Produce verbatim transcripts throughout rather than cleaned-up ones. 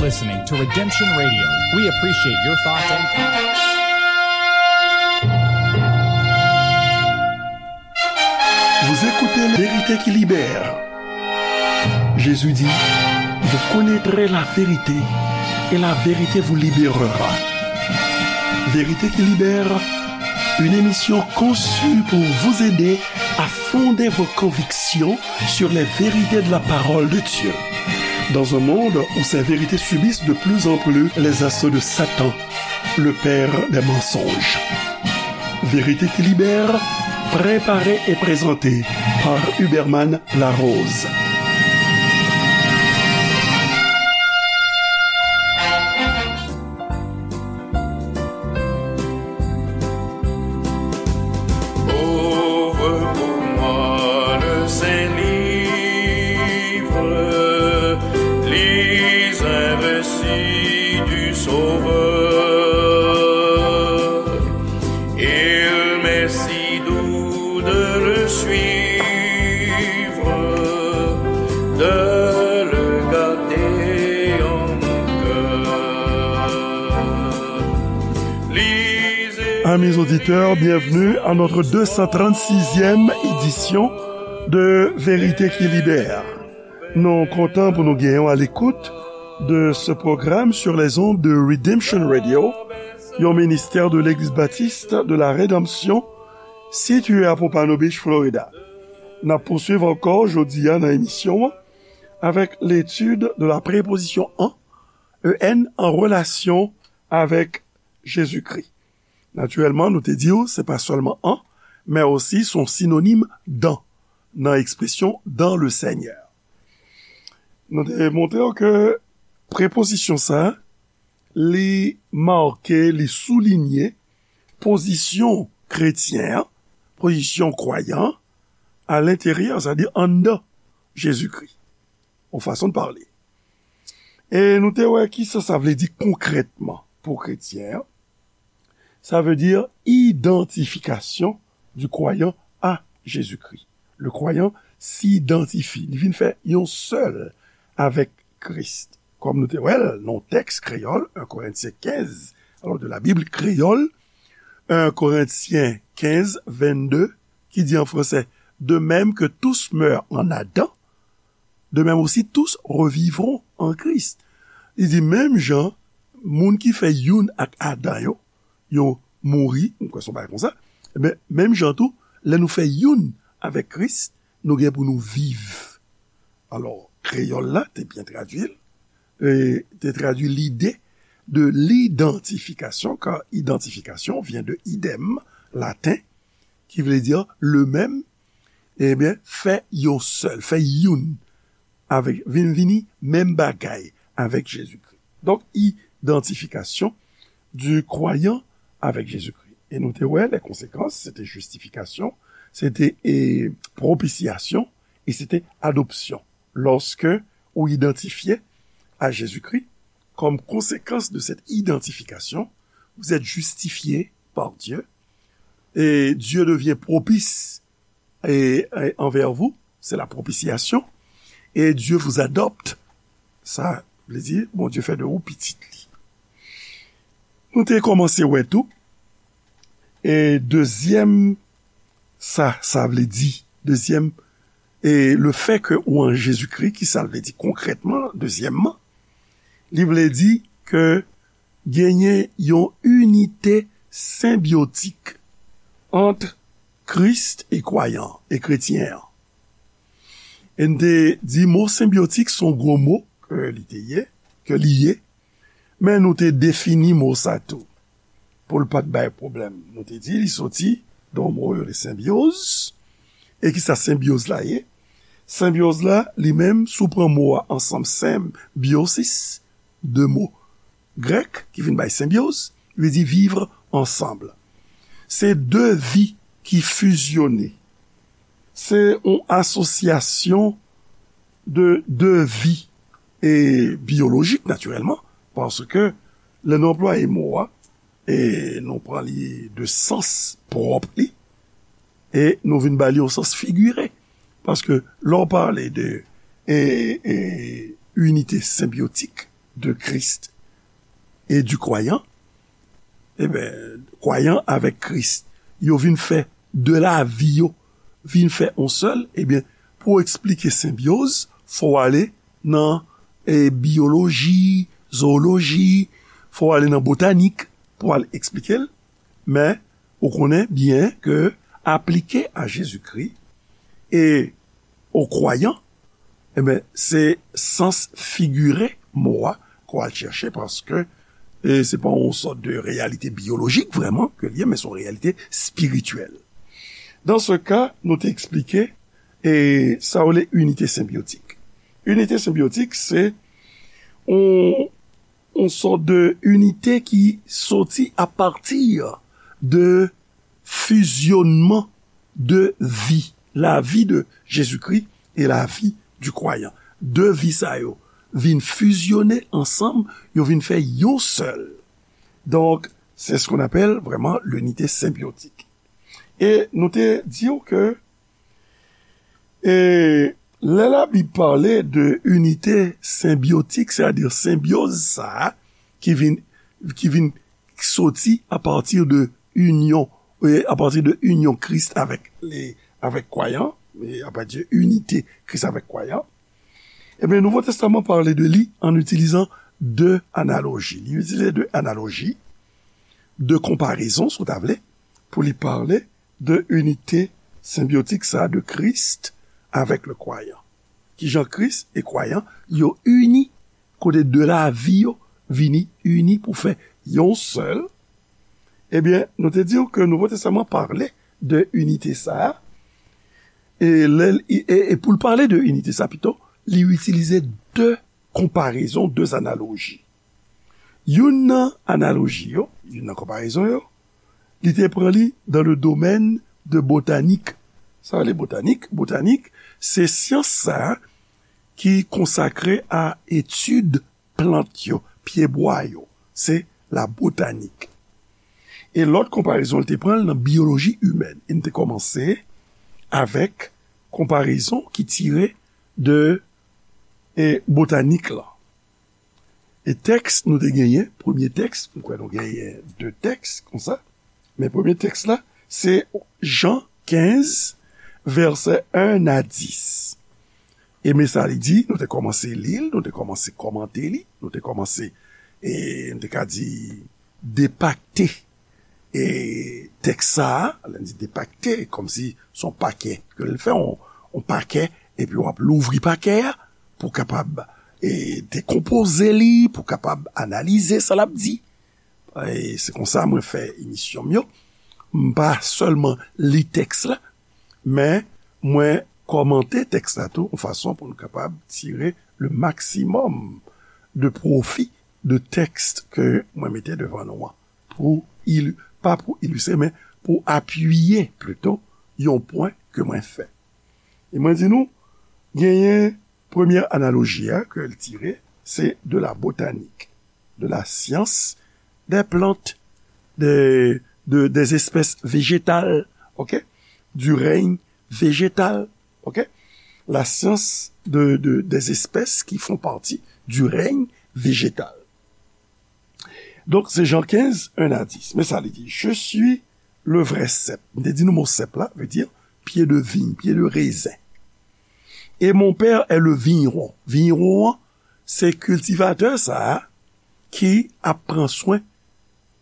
Listening to Redemption Radio. We appreciate your thoughts and comments. Vous écoutez La Vérité qui libère. Jésus dit, vous connaîtrez la vérité et la vérité vous libérera. Vérité qui libère, une émission conçue pour vous aider à fonder vos convictions sur les vérités de la parole de Dieu. Dans un monde où ces vérités subissent de plus en plus les assauts de Satan, le père des mensonges. Vérité qui libère, préparée et présentée par Huberman Larose. Ouvre pour moi le saint livre, lis un récit du Sauveur. Il m'est si doux de le suivre, de le garder en mon cœur. Amis auditeurs, bienvenue à notre deux cent trente-sixième édition de Vérité qui libère. Nou kontan pou nou genyen w à l'écoute de ce programme sur les ondes de Redemption Radio, yon ministère de l'Église baptiste de la Rédemption, situé à Pompano Beach, Florida. N ap pouswiv ankò jodi a nan emisyon an avec l'étude de la préposition en, en, en relation avec Jésus-Christ. Natirèlman, nou te di w, se pa sèlman en, men osi se yon sinonim dans, nan ekspresyon dans le Seigneur. Nou te montre w ke prepozisyon sa, li make, li soulinye pozisyon kretyen an, pozisyon kwayan an, à l'intérieur, c'est-à-dire anndan Jezikri. Yon fason de pale. E nou te wè kisa sa vle di konkrètman pou kretyen an. Ça veut dire identification du croyant à Jésus-Christ. Le croyant s'identifie. Li vin fè yon sèl avèk Kris. Kòm nou te wè l nan tèks kreyòl, un Corinthiens quinze, alors de la Bible créole, un Corinthiens quinze, vingt-deux, qui dit en français, de même que tous meurent en Adam, de même aussi tous revivront en Christ. Li di, menm jan, moun ki fè youn ak Adan yo, yo mouri, m kwè se yon bagay konsa, men, menm jan tou, lè nou fè youn avèk Kris, nou gen pou nou viv. Alò, kreyòl la te byen tradui l, e te tradui lide de l'identification, car identification vient de idem, laten, ki vle di le même, ebyen, fè yon sèl, fè youn avèk, vin vini menm bagay avèk Jezikri. Donk, identification du croyant avec Jésus-Christ. E nou te wè, les conséquences, c'était justification, c'était, e, propitiation, et c'était adoption. Lorsque ou identifié à Jésus-Christ, comme conséquence de cette identification, vous êtes justifié par Dieu, et Dieu devient propice et, et envers vous, c'est la propitiation, et Dieu vous adopte. Sa vle di, Bondye fè de ou pitit li. Nou te kòmanse wè tou, e dezyèm, sa, sa vle di, dezyèm, e le fait que ou an Jezikri, ki sa vle di konkrètman, dezyèmman, li vle di ke genyen yon inite senbyotik ant Kris e kwayan, e kretyen an. E n te di mo senbyotik se yon gwo mo ke li te ye, ke li ye, men nou te defini mo sa tou. Pou l pa t bay pwoblèm, nou te di li soti de yon mo yo rele senbyoz. E ki sa senbyoz la ye? Senbyoz la, li menm, si w pran mo a ansanm, senbyosis, de mo grèk ki vin bay senbyoz, li di vivre ensemble. Se de vi ki fizyone. Se yon asosyasyon de, de vi e biyolojik, natirèlman, paske lè nou anplwaye mo a, e nou pran li de sans pwòp li, e nou vin ba li yon sans figire. Paske lè w pale de, e, e, inite senbyotik, de Christ et du croyant, ebyen, kwayan avèk Kris, yo vin fè de lavi yo, vin fè yon sèl, ebyen, pou w eksplike senbyoz, fò w ale nan e, biyoloji, zooloji, fò w ale nan botanik pou w al eksplike l. Men, ou konnen byen ke aplike a Jezikri e o kwayan, ebyen, se sans figire mo a ke w al chèche, paske e, se pa yon sòt de reyalite biyolojik vrèman ke l ye, men se yon reyalite espirityèl. Dan se ka, nou te eksplike e sa yo rele inite senbyotik. Inite senbyotik, se yon, yon sòt de inite ki soti apati de fizyonnman de vi, lavi de Jezikri e lavi du kwayan. De vi sa yo vin fizyone ansanm, yo vin fè yon sèl. Donk, c'est ce qu'on appelle vraiment l'unité symbiotique. E nou te di w ke e lè Labib pale de inite senbyotik, sètadi senbyoz sa a ki vin, ki vin soti apati de inyon, e apati de inyon Kris avèk, e, avèk kwayan, e apati de inite Kris avèk kwayan, ebyen, Nouvo Testaman pale de li an itilizan de analoji. Li itilize de analoji, de konparezon, si w ta vle, pou li pale de inite senbyotik sa de Kris avèk le kwayan. Kijan Kris e kwayan yo ini, kote de lavi yo vini ini pou fè yon sèl. Ebyen, nou te di w ke Nouvo Testaman pale de inite sa a. E, lè l, e, e pou l pale de inite sa pito, li itilize de konparezon, de analoji. Youn nan analoji yo, youn nan konparezon yo, li te pran li dans le domaine de botanik. Sa vle botanik? Botanik, se syans sa a ki konsakre a etid plant yo, pyebwa yo. Se la botanik. E lòt konparezon, li te pran l nan biyoloji imèn. E n te kòmanse avèk konparezon ki tire de e, botanik lan. E tèks nou te genyen, premye tèks, m kwè nou genyen de tèks konsa, men premye tèks la, se Jan kenz, vèsè en a dis. E men sa li di, nou te kòmanse li l, nou te kòmanse kòmante li, nou te kòmanse, e, nou te ka di, depakte e, tèks sa a, lè n di depakte, kòmsi se yon pakè ke l fè, yon, yon pakè, epi w ap louvri pakè a pou w kapab e, dekonpoze li, pou w kapab analize sa l ap di. E se konsa mwen fè emisyon m yo. M pa sèlman li tèks la, men mwen kòmante tèks la tou, yon fason pou nou kapab tire le maksimòm de pwofi de tèks ke mwen mete devan nou an. Pou ili-, pa pou ilistre, men pou apiye plito yon pwen ke mwen fè. E mwen di nou, genyen premye analoji a ke l tire, se de la botanik, de la science des plantes, de, de, des espèces végétales, ok? Du règne végétal, ok? La science de, de, des espèces qui font partie du règne végétal. Donk, se Jan kenz, en a dis. Men sa li di, Je suis le vrai cep. M te di nou mo sep la, vle di pye de viy, pye de rezen. Et mon père est le vigneron. Vigneron an, se kiltivatè sa a ki ap pran swen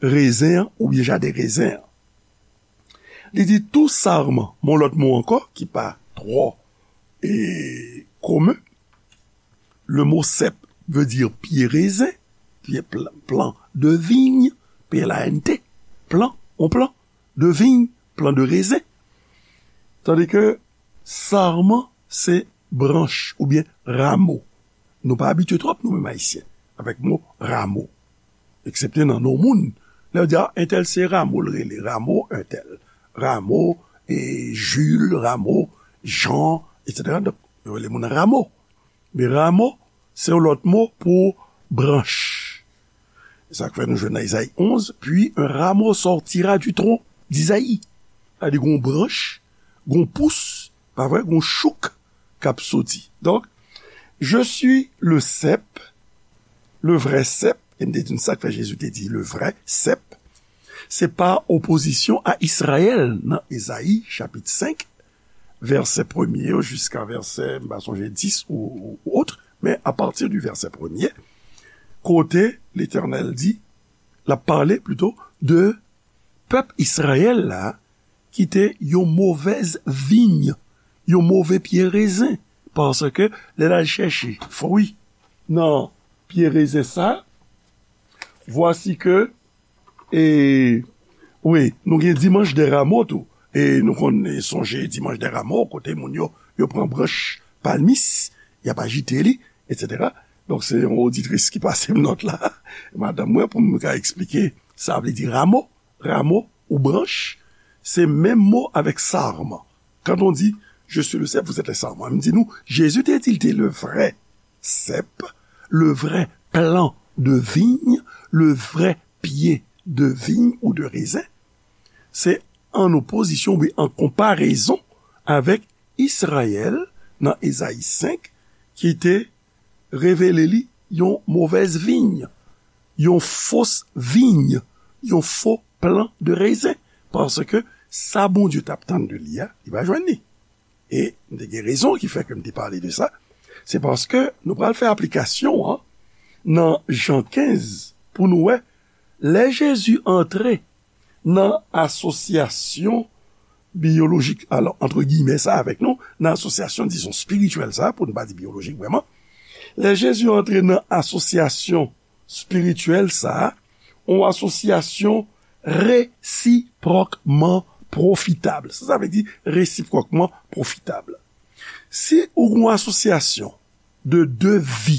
rezen an oubyen jaden rezen an. Li di tou sarman, men yon lòt mo ankò ki pa twò e, komen. Le mot cep veut dire pied raisin, pied pl-, plant de vigne, P L A N T, plant, on plant de vigne, plant de raisin. Tandis que sarman, se branch oubyen ramo. Nou pa abitye twòp, nou menm Ayisyen, avèk mo ramo. Eksepte nan non moun. Lè yo di, a, entèl se Ramo, l rele Ramo, entèl. Ramo, e, Jules, Ramo, Jean, etsetera. Donk, yo rele moun Ramo. Men ramo, se yon lòt mo pou branch. E sa k fè nou jwenn nan Izayi onz, puis un rameau sortira du tronc d'Isaïe. Sa di gon branch, gon pous, pa vre, gon chouk k ap soti. Donk, je suis le cep, Le vrè sèp, e m te di n sa k fè Jezi te di le vrè sèp, se pa opozisyon a Izrayèl nan Ezayi chapit senk, vèsè premye yo jiska vèsè, m pa sonje dis ou, ou, ou ot, men apati di vèsè premye, kote Letènèl di, l ap pale plito de pèp Izrayèl la ki te yon movèz viy, yon move pye rezen, paske lè l al chèche fwi nan pye rezen sa, vwasi ke, e, wi, nou gen Dimanche des Rameaux tou. E nou konn sonje Dimanche des Rameaux, kote moun yo, yo pran branch palmis, y ap ajite li, etsetera. Donk, se yon oditris ki pase m nòt la, madanm mwen, pou m ka eksplike sa vle di ramo. Ramo ou branch, se menm mo avèk sarman. Quand on dit, je suis le cep, vous êtes les sarments. M di nou, Jezi te di l te le vrè sèp, le vrè plan de vigne, le vrè pye de vigne ou de rezen. Se an opozisyon, wi, an konparezon avèk Izrayèl nan Ezayi senk, ki te revele li yon movèz viy, yon fos viy, yon fo plan de rezen. Paske sa Bondye t ap tann de li a, li pa jwenn li. E m te gen rezon ki fè ke m te pale de sa. Se paske nou pral fè aplikasyon an nan Jan kenz pou nou wè, lè Jezi antre nan asosyasyon biyolojik, alò, antre giyimè sa avèk nou, nan asosyasyon, dizon, espirityèl sa, pou n pa di biyolojik vrèman, lè Jezi antre nan asosyasyon espirityèl sa, yon asosyasyon resipwòkman pwofitab. Sa, sa vle di resipwòkman pwofitab. Si ou gen yon asosyasyon de de vi,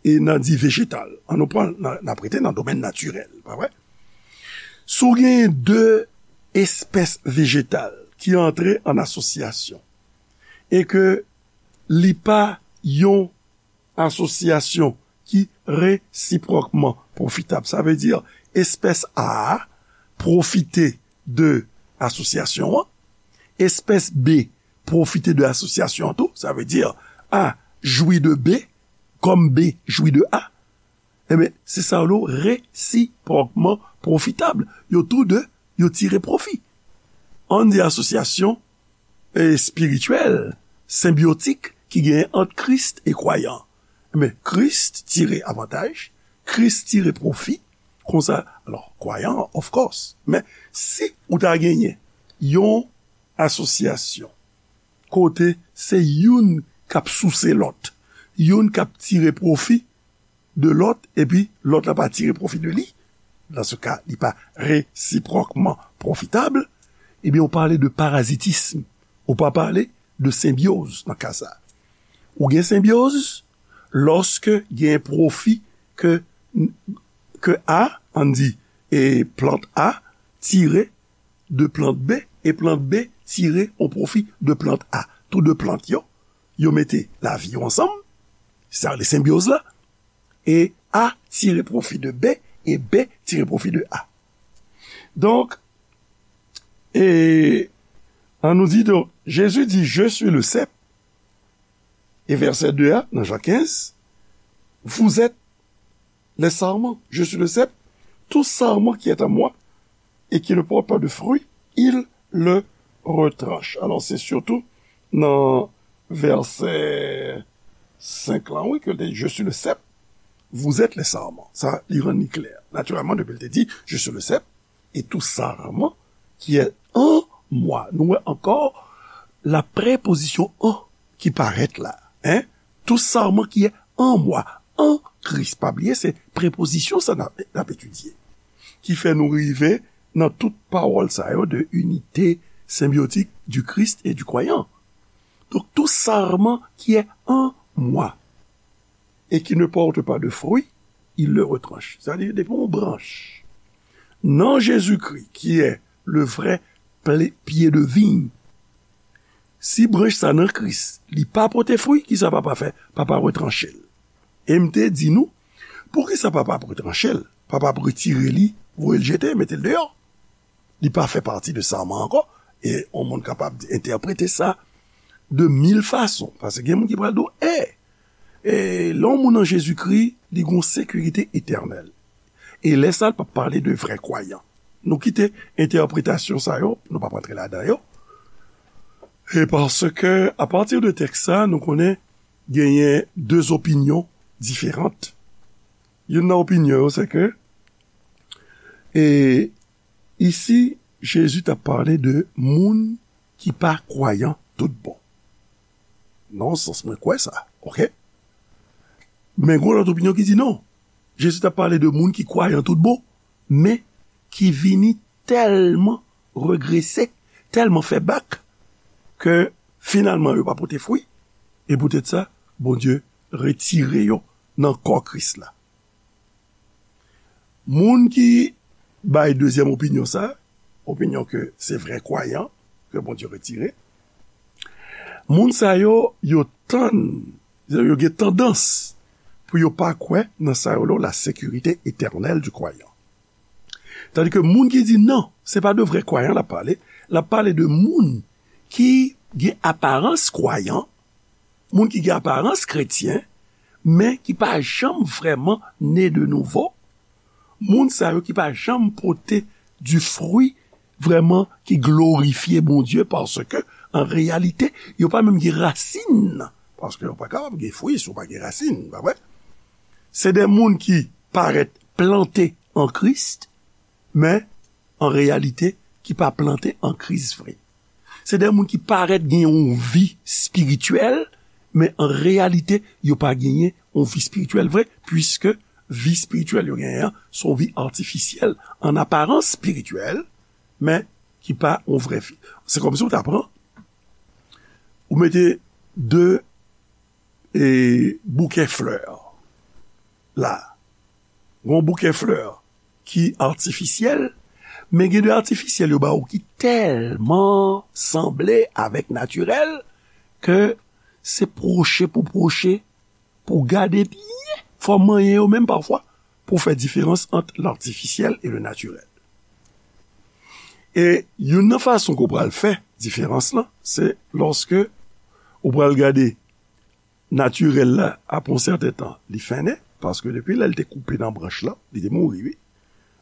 e n a di vejetal, an nou pran, n a, n ap rete nan domèn natirèl, pa vre? Si w genyen de espès vejetal ki antre an asosyasyon, e ke li pa yon asosyasyon ki resipwòkman pwofitab, sa vle di espès A a pwofite de asosyasyon an, espès B pwofite de asosyasyon an tou, sa vle di A jwi de B, kòm B jwi de A, enben, se sa yo rele resipwòkman pwofitab. Yo tou de, yo tire pwofi. An di asosyasyon, e, espirityèl, senbyotik ki genyen ant Kris e kwayan. Enben, Kris tire avantaj, Kris tire pwofi, konsa, alò, kwayan, of course. Men, si ou ta genyen yon asosyasyon kote se youn k ap souse lòt, youn k ap tire pwofi de lòt, epi lòt la pa tire pwofi de li, dans ce cas, li pa resipwòkman pwofitab, ebyen, ou pale de parazitism, ou pa pale de senbyoz nan ka sa. Ou gen senbyoz lòske gen pwofi ke, ke A, ann di, e plant A tire de plant B, e plant B tire yon pwofi de plant A. Tou de plant yo, yo mete lavi yo ansanm, sa rele senbyoz la, e A tire pwofi de B, e B tire pwofi de A. Donk, e, ann nou di, donk, Jezi di, je suis le cep, e vèsè de a, nan Jan kenz, vous êtes les sarments, je suis le cep, tout sarment qui est en moi et qui ne porte pas de fruit, il le retranche. Alò, se sitou nan vèsè senk lan, wi, ke l te di, je suis le cep, vous êtes les sarments. Sa, li rann li klè. Natirèlman, depi l te di, je suis le cep, et tout sarment qui est en moi. Nou wè ankò la prepozisyon en ki parèt la. Hein? Tout sarment qui est en moi, en Christ. Pa bliye, se prepozisyon sa n ap, n ap etidye. Ki fè nou rive nan tout pawòl sa yo de unité symbiotique du Christ et du croyant. Donc, tout sarment qui est en moi et qui ne porte pas de fruit, il le retranche. Sa vle di, depi yon branch nan Jezikri, ki est le vrai ple-, pye de viy, si branch sa nan Kris, li pa pote fwi, kisa Papa fè? Papa retranche l. E m te di nou, poukisa Papa ap retranche l? Papa ap retire li, voye l jete, mete l deyò. Li pa fè pati de sarman ankò. E yon moun kapab di, entèprete sa de mil fason. Paske gen moun ki pral di w, e, E lè yon moun an Jezikri, li gen yon sekirite etènèl. E lè sa, l p ap pale de vrè kwayan. Nou kite entèpretasyon sa yo, nou p ap rantre ladan yo. E paske, apati de tèks sa, nou konnen genyen de opinyon diferan. Youn nan opinyon yo, se ke, e, isi, Jezi t ap pale de moun ki pa kwayan tout bon. Nan yon sans, mwen kwè sa, oke? Men gen lòt opinyon ki di non. Jezi t ap pale de moun ki kwayan tout bon, men ki vini tèlman regrese, tèlman fè bak, ke finalman yo pa pote fwi, e poutèt sa, Bondye retire yo nan kò Kris la. Moun ki bay dezyèm opinyon sa, opinyon ke se vrè kwayan ke Bondye retire, moun sa yo, yo tann, yo gen tandans pou yo pa kwè nan sa yo rele la sécurité éternelle du croyant. Tandi ke moun ki di non, se pa de vrè kwayan l ap pale, l ap pale de moun ki gen aparans kwayan, moun ki gen aparans kretyen, men ki pa janm vrèman ne de nouvo, moun sa yo ki pa janm pote di fwi vrèman ki glorifye Bondye, paske, an reyalite, yo pa menm gen rasin, paske yo pa kapab gen fwi si yo pa gen rasin, pa vre? Se de moun ki parèt plante an Kris, men an reyalite, ki pa plante an Kris vre. Se de moun ki parèt gen yon vi espirityèl, men an reyalite, yo pa genyen yon vi espirityèl vre, piske vi espirityèl yo genyen an, se yon vi atifisyèl, an aparans espirityèl, men ki pa yon vrè vi. Se kòmsi w ta pran, ou mete de, e, bouke flè la. Gen yon bouke flè ki atifisyèl, men gen de atifisyèl yo ba ou ki tèlman sanble avèk natirèl ke se pwoche pou pwoche, pou gade byen, fò w manyen yo menm pafwa, pou fè diferans ant latifisyèl e le natirèl. E youn nan fason ke w pral fè diferans lan, se lòske ou pral gade natirèl la, apre yon sèten tan, li fennen, paske depi lè l te koupe nan branch lan, li te mouri, wi.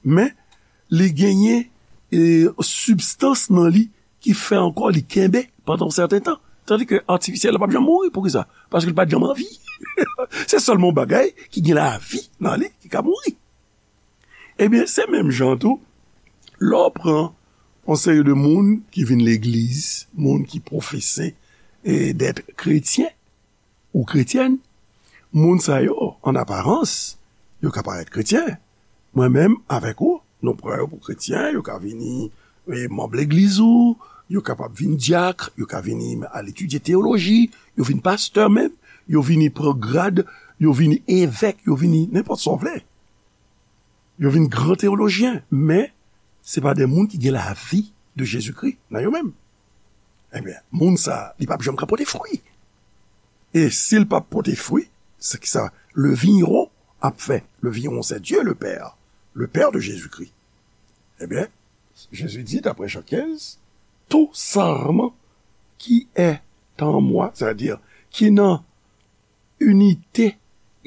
Men, li genyen, e, sibstans nan li ki fè ankò li kenbe pandan yon sèten tan. Tandi ke atifisyèl la p ap janm mouri. Poukisa? Paske li pa t janm an vi. Se sèlman yon bagay ki gen lavi nan li ki ka mouri. Ebyen, se menm jan tou, lè w pran yon seri de moun ki vin legliz, moun ki pwofese, e, d'être chrétien ou chrétienne, moun sa yo, an aparans, yo ka parèt kretyen. Mwen menm, avèk ou, nou pran yo pou kretyen, yo ka vini, e, manm legliz ou, yo kapab vin dyak, yo ka vini al etidye teyoloji, yo vin pastè menm, yo vini pran grad, yo vini evèk, yo vini nenpòt sa w vle. Yo vin gran teyolojyen, men se pa de moun ki gen lavi de Jezikri nan yo menm. Ebyen, moun sa, li p ap janm ka pote fwi. E si l p ap pote fwi, se ki sa le vigneron ap fè? Le vigneron, c'est Dieu le Père, le Père de Jésus-Christ. Ebyen, Jésus dit, d'après Jean quinze, tout sarment qui est en moi, c'est-à-dire qui nan inite,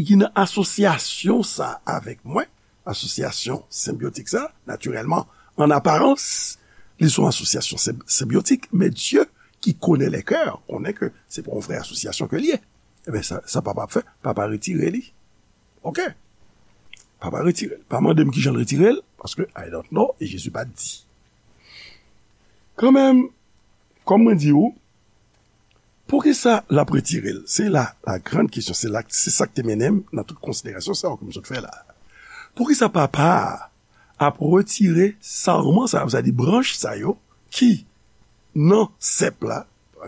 ki nan asosyasyon sa avèk mwen, asosyasyon senbyotik sa, natirèlman, an aparans, li se yon asosyasyon senb-, senbyotik, men Dye ki konnen lè kè, konnen ke se pa yon vrè asosyasyon ke l ye. Ebyen, sa, sa papa ap fè, papa retire li. Oke? Papa retire l. Pa mande m kijan l retire l, paske I don't know, e Jezi pa t di. Kanmenm, kòm mwen di w, poukisa l ap retire l? Se la, la grande question, se la, se sa k te mennen m nan tout konsiderasyon sa yo ke m sot fè la. Poukisa papa a ap retire sarman sa yo, sa di branch sa yo, ki nan sèp la,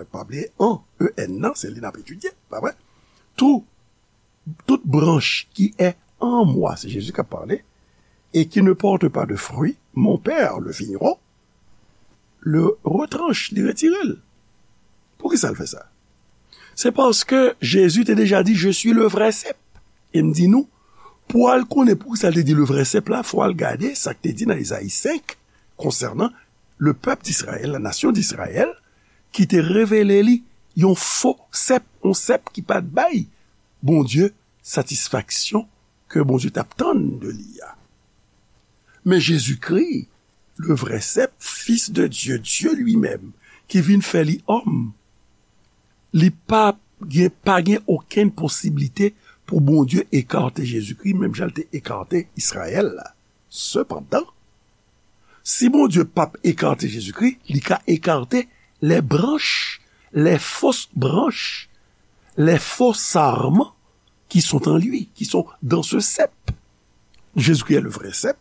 pa bliye an, E N nan, se li n ap etidye, pa vre? Tout, toute branche qui est en moi, se Jezi k ap pale, et qui ne porte pas de fruit, mon Père, le vigneron, le retranche, li retire l. Poukisa l fè sa? Se paske Jezi te deja di, je suis le vrai cep. E m di nou, pou w al konnen poukisa l te di le vrai cep la, fò w al gade sa k te di nan Ezayi senk konsènan le pèp d'Izrayèl, la nasyon d'Izrayèl, ki te revele li yon fo sèp, yon sèp ki pa t bay Bondye, satisfaksyon ke Bondye t ap tann de li a. Men Jezikri, le vrai cep, Fils de Dieu, Dieu lui-même, ki vin fè li òm, li pa gen, pa gen okenn posiblite pou Bondye ekate Jezikri, menm jan l te ekate Izrayèl la. Sepandan, si Bondye p ap ekate Jezikri, li ka ekate les branches, les fausses branches, les faux sarments qui sont en lui, qui sont dans ce cep. Jésus-Christ est le vrai cep.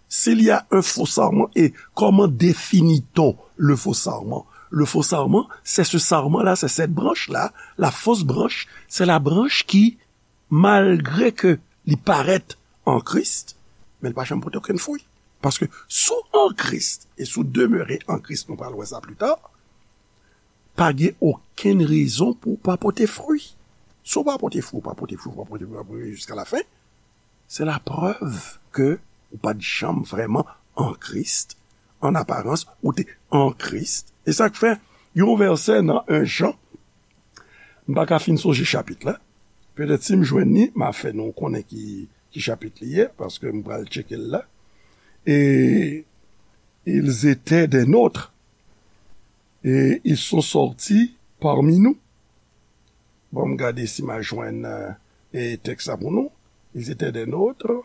S'il y a un faux sarment, et comment définit-on le faux sarment? Le faux sarment, c'est ce sarment-là, c'est cette branche-là. La fausse branche, c'est la branche qui, malgré que li parèt an Kris, men li pa janm pote okenn fwi. Paske si w an Kris, e si w demere an Kris, nou pral wè sa pli ta, pa gen okenn rezon pou w pa pote fwi. Si w pa pote fwi, w pa pote fwi, w pa pote fwi, w pa pote fwi jiska lafen, se laprèv ke ou pa t janm vrèman an Kris. An aparans, ou te an Kris. E sa k fè, yon vèsè nan en Jan, m pa ka fin sonje chapit la. Petèt si m jwenn li, m a fè nou konnen ki, ki chapit li ye, paske m pral tcheke l la. Et ils étaient des nôtres, et ils sont sortis parmi nous. Bon, m gade si m a jwenn, euh, e tèks la pou nou. Ils étaient des nôtres,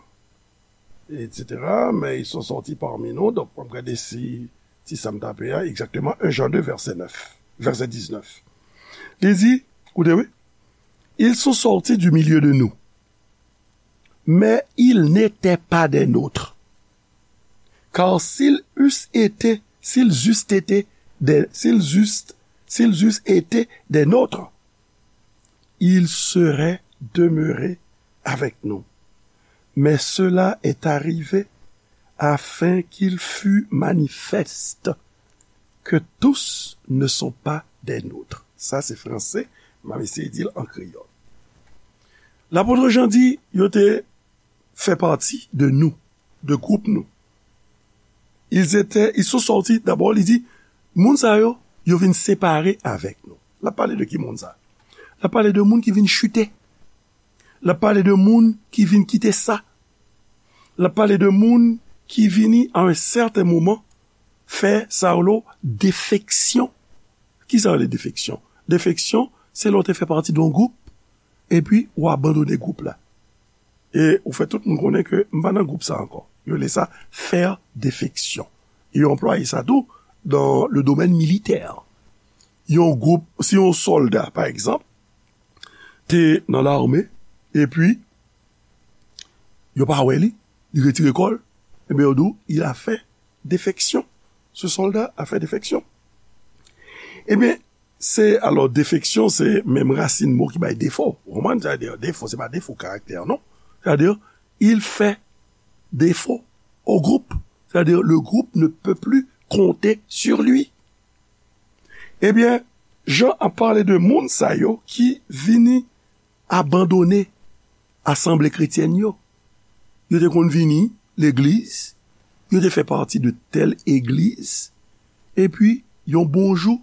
et cetera, mais ils sont sortis parmi nous. Donk, m ap gade si, si sa m tape a, egzakteman, en Jan de, vèsè nèf, vèsè diznèf. Li di, koute, wi, ils sont sortis du milieu de nous, mais ils n'étaient pas des nôtres. Car s'ils eussent été, s'ils eussent été des, s'ils eussent, s'ils eussent été des nôtres, ils seraient demeurés avec nous. Mais cela est arrivé afin qu'il fût manifeste que tous ne sont pas des nôtres. Sa se franse, m ap eseye di l an kreyòl. Lapot Jan di, yo te fè pati de nou, de gwoup nou. Ils étaient, ils sont sortis, dabò, li di, moun sa yo, yo vin separe avèk nou. L ap pale de ki moun sa? L ap pale de moun ki vin chite. L ap pale de moun ki vin kite sa. L ap pale de moun ki vini a yon sèten moman fè sa yo rele defeksyon. Ki sa yo rele defeksyon? Defeksyon, se lè w te fè pati de yon gwoup, epi w abandone gwoup la. E ou fè tout moun konnen ke m pa nan gwoup sa ankò. Yo rele sa faire défection. E yo anplwaye sa tou dans le domaine militaire. Yon gwoup, si yon sòlda, pa egzanp, te nan lame, epi yo pa wè li, li retire kò l, ebyen, yo di w, il a fait défection. Ce soldat a fait défection. Ebyen, se, alò, defeksyon, se menm rasin mo ki bay defo. Ou konprann? Sa vle di, defo, se pa defo karaktè, non. Sa vle di, il fait défaut au groupe. Sa vle di, le groupe ne peut plus compter sur lui. Ebyen, Jan ap pale de moun sa yo ki vini abandone asanble kretyèn yo. Yo te konn vini legliz, yo te fè pati de tèl egliz, epi yon bon jou,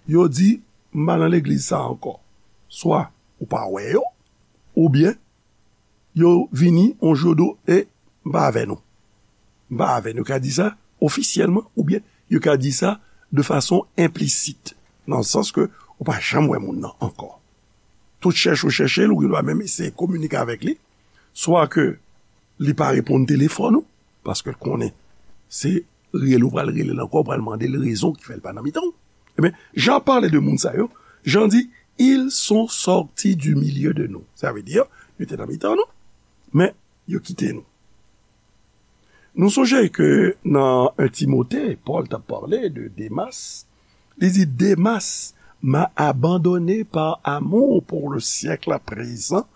yo di, "M pa nan legliz sa ankò." Swa ou pa wè yo, oubyen yo vini yon jou, yo di w, "E, m pa avè nou." M pa avè nou. Yo ka di sa ofisyèlman, oubyen yo ka di sa de fason enplisit, nan sans ke ou pa janm wè moun nan ankò. Tout chèche ou chèche l, ou gen dwa menm eseye kominike avèk li, swa ke li pa reponn telefòn ou, paske l konnen se rele ou pral rele l ankò, ou pral mande l rezon ki fè l pa nan mitan w. Ebyen, Jan pale de moun sa yo, Jan di, "Ils sont sortis du milieu de nous." Sa vle di, yo te nan mitan nou, men yo kite nou. Nou sonje ke nan en Timote, Pòl t ap pale de Demas. Li di, "Demas m'a abandonné par amour pour le siècle à présent,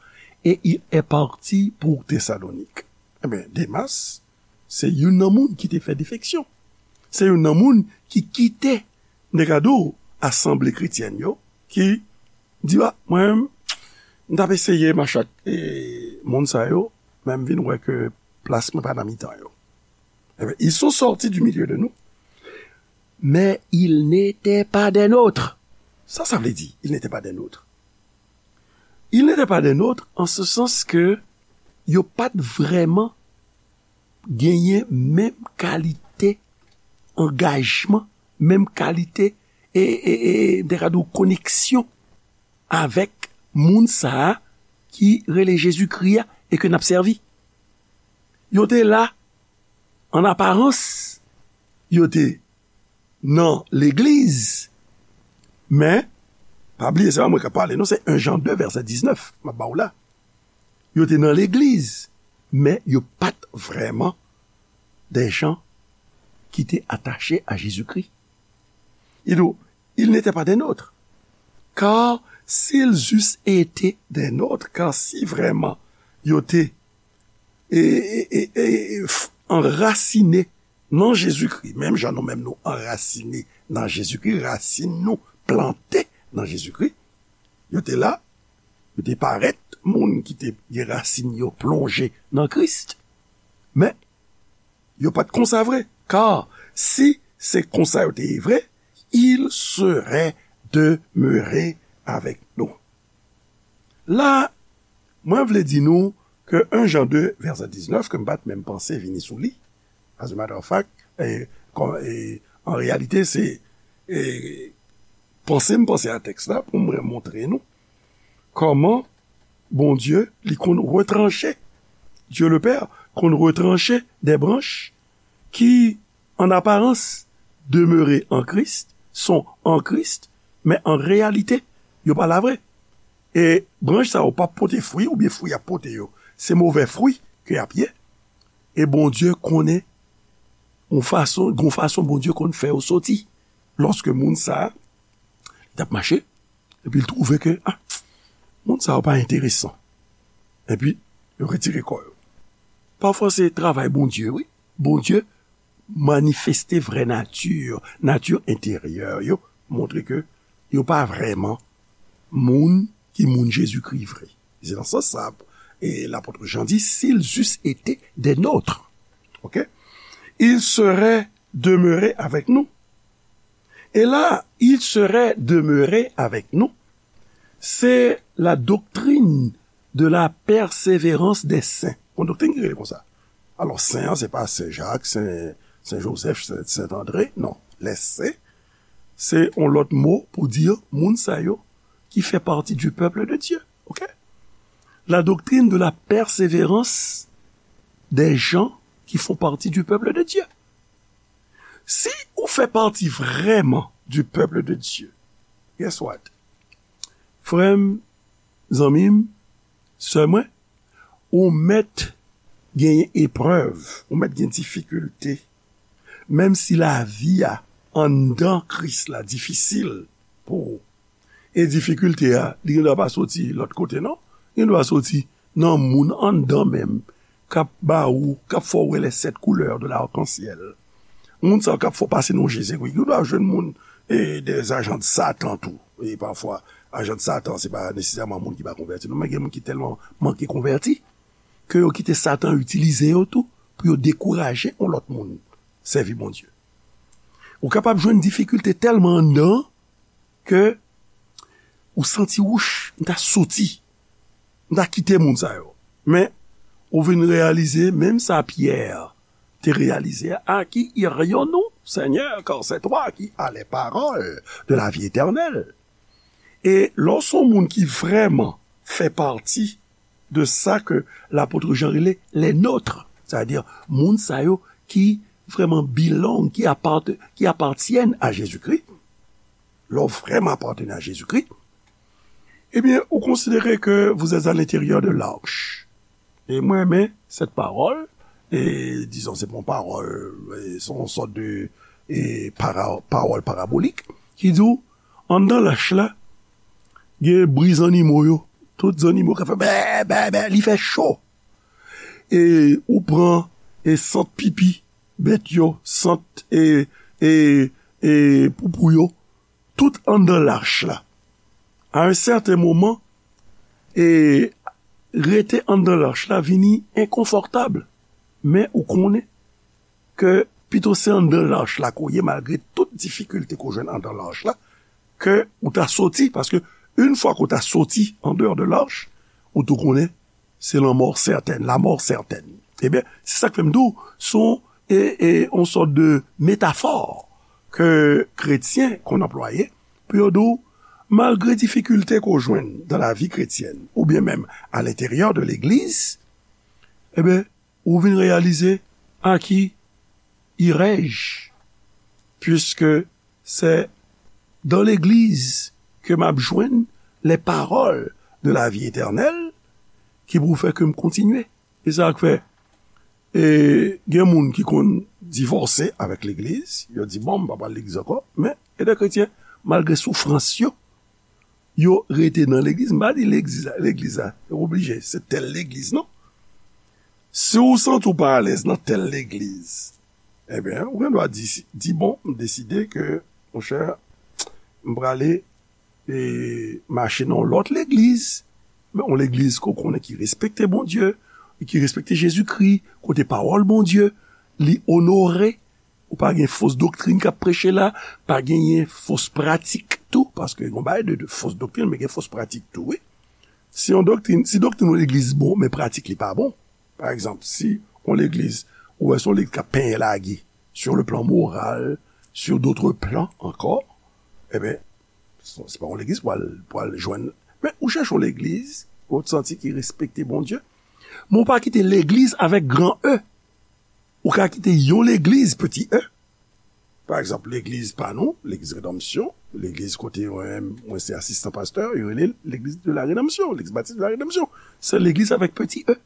et il est parti pour Thessalonique." Ebyen, Demas, se youn nan moun ki te fè defeksyon. Se youn nan moun ki kite, m te ka di w, asanble kretyèn yo, ki di, "A, mwen menm, m t ap eseye mache ak, e, moun sa yo, men m vin wè ke plas mwen pa nan mitan yo." Ebyen, ils sont sortis du milieu de nous, mais ils n'étaient pas des nôtres. Sa sa vle di, ils n'étaient pas des nôtres? Il n'était pas des nôtres, en ce sens que yo pa t vrèman genyen menm kalite angajman, menm kalite, e, e, e, m te ka di w koneksyon avèk moun sa a ki rele Jezikri a e ke n ap sèvi. Yo te la, an aparans, yo te nan legliz, men, pa bliye, se pa mwen k ap pale, non, se en Jan de, vèsè diznèf, m ap ba w la. Yo te nan legliz, men yo pa t vrèman des gens qui étaient attachés à Jésus-Christ. Il dit, ils n'étaient pas des nôtres. Car s'ils eussent été des nôtres, car si vrèman yo te e, e, e, e, f- anrasine nan Jezikri, menm jan nou menm nou anrasine nan Jezikri, rasin nou plante nan Jezikri, yo te la, yo te parèt moun ki te gen rasin yo plonje nan Kris, men yo pa t konsa vre. Kar si se konsa yo te ye vre, il serait demeuré avec nous. La, mwen vle di nou ke en Jan de, vèsè diznèf, ke m pa t menm panse vini sou li. As a matter of fact, e, kò- e, an reyalite, se e, panse m panse a tèks la pou mwen montre nou kòman Bondye, li konn retranche, Dieu le Père konn retranche des branches qui, en apparence, demeuraient en Christ, sont en Christ, men an reyalite, yo pa la vre. E branch sa yo p ap pote fwi, oubyen fwi y ap pote yo, se movè fwi ke y ap ye. E Bondye konnen yon fason, gon fason Bondye konn fè yo soti. Lòske moun sa a, li t ap mache, epi l twouve ke, ah, moun sa yo pa enteresan. Epi, yo retire kò yo. Pafwa se travay Bondye, wi. Bondye manifeste vrè nati, nati enteryè yo, montre ke yo pa vrèman moun ki moun Jezikri vre. Se nan sans sa, e lapot Jan di, s'ils eussent été des nôtres, ok, ils seraient demeurés avec nous. Et là, ils seraient demeurés avec nous. C'est la doctrine de la persévérance des saints. Yon doktrin ki rele konsa. Alò, sen an, se pa Sen Jak, Sen, Sen Jozèf, Sen, Sen Andre, non. Les saints, se yon lòt mo pou di moun sa yo ki fè pati du peuple de Dieu. Ok? La doctrine de la persévérance des gens qui font partie du peuple de Dieu. Si ou fè pati vrèman du peuple de Dieu, guess what? Frè m, zanmi m, sè mwen, ou mèt genyen eprèv, ou mèt gen difikilte. Menm si lavi a anndan Kris la difisil pou ou. E difikilte a, li gendwa pa soti lòt kote, non. Li gendwa soti nan moun anndan menm, k ap ba ou, k ap fè w wè les sept couleurs de l'arc-en-ciel. Moun sa yo k ap fè w pase nan je, se wi. Ou dwe jwenn moun, e, des agents de Satan tou. E pafwa, ajan de Satan, se pa nesesèman moun ki pa konvèti, non, men gen moun ki tèlman manke konvèti, ke yo kite Satan itilize yo tou, pou yo dekouraje yon lòt moun sèvi Bondye. Ou kapab jwenn difikilte tèlman anndan, ke ou santi, wouch, m ta soti, m ta kite moun sa yo. Men, ou vin reyalize, menm sa Pyè te reyalize, à qui irions-nous, Seigneur, car c'est toi qui as les paroles de la vie éternelle. E lè w se yon moun ki vrèman fè pati de sa ke lapot Jan rele les nôtres, sètadi moun sa yo ki vrèman belong, ki apart-, ki apatyenn a Jezikri, lè w vrèman apatyenn a Jezikri, ebyen, ou konsidere ke vous êtes à l'intérieur de l'arche. E mwen renmen cette parole, e dizon, se pa yon pawòl, e se yon sòt de, e para-, pawòl parabolik, ki di w, anndan lach la, gen bri zannimo yo, tout zannimo ka fè bè, bè, bè, li fè cho. E ou pran, e sant pipi bèt yo, sant, e, e, e poupou yo, tout anndan lach la. A yon sèten moman, e rete anndan lach la vini enkonfòtab. Men ou konnen ke pito se anndan lach la ke w ye, malgre tout difikilte ke w jwenn anndan lach la, ke ou ta soti, paske Yon fwa ke w ta soti an deyò de lach, ou tou konnen se lanmò sètèn, lamò sètèn. Ebyen, se sa k fè m di w, se yon, e, e, yon sòt de metafò ke kretyen konn anplwaye pou yo di w, malgre difikilte ke w jwenn dan lavi kretyèn, oubyen menm a lenteryè de legliz, ebyen, ou vin reyalize à qui irai-je, puisque c'est dans l'église que m ap jwenn les paroles de la vie éternelle ki pou fè ke m kontinye. E sa k fè, e, gen moun ki konn divòse avèk legliz, yo di, bon, m pa pral legliz ankò, men, gen de kretyen, malgre soufrans yo, yo rete nan legliz. M pa di legliz la, legliz la, yo oblije, se tèl legliz, non. Si w santi w pa alèz nan tèl legliz, ebyen, ou gen dwa di, di, bon, m deside ke, monchè, m prale, e, mache nan yon lòt legliz, men yon legliz ke w konnen ki respekte Bondye, ki respekte Jezikri, kote pawòl Bondye, li onore, ou pa gen fos doktrin k ap preche la, pa genyen fos pratik tou, paske gen yon bagay de, de fos doktrin, men gen fos pratik tou, wi. Si yon doktrin, si doktrin yon legliz bon, men pratik li pa bon. Pa egzanp, si yon legliz, ou wè se yon legliz k ap penyen lage, sur le plan moral, sur d'autres plans encore, ebyen, se, se pa yon legliz pou al, pou al jwenn. Men ou chèche yon legliz, ou santi ki respekte Bondye, men ou pa kite legliz avèk gran E. Ou ka kite yon legliz, peti E. Pa egzanp, legliz pa nou, legliz Redanmsyon, legliz kote mwen, mwen se asistan pastè, yo rele l legliz de la Redanmsyon, legliz batis de la Redanmsyon. Se legliz avèk peti E.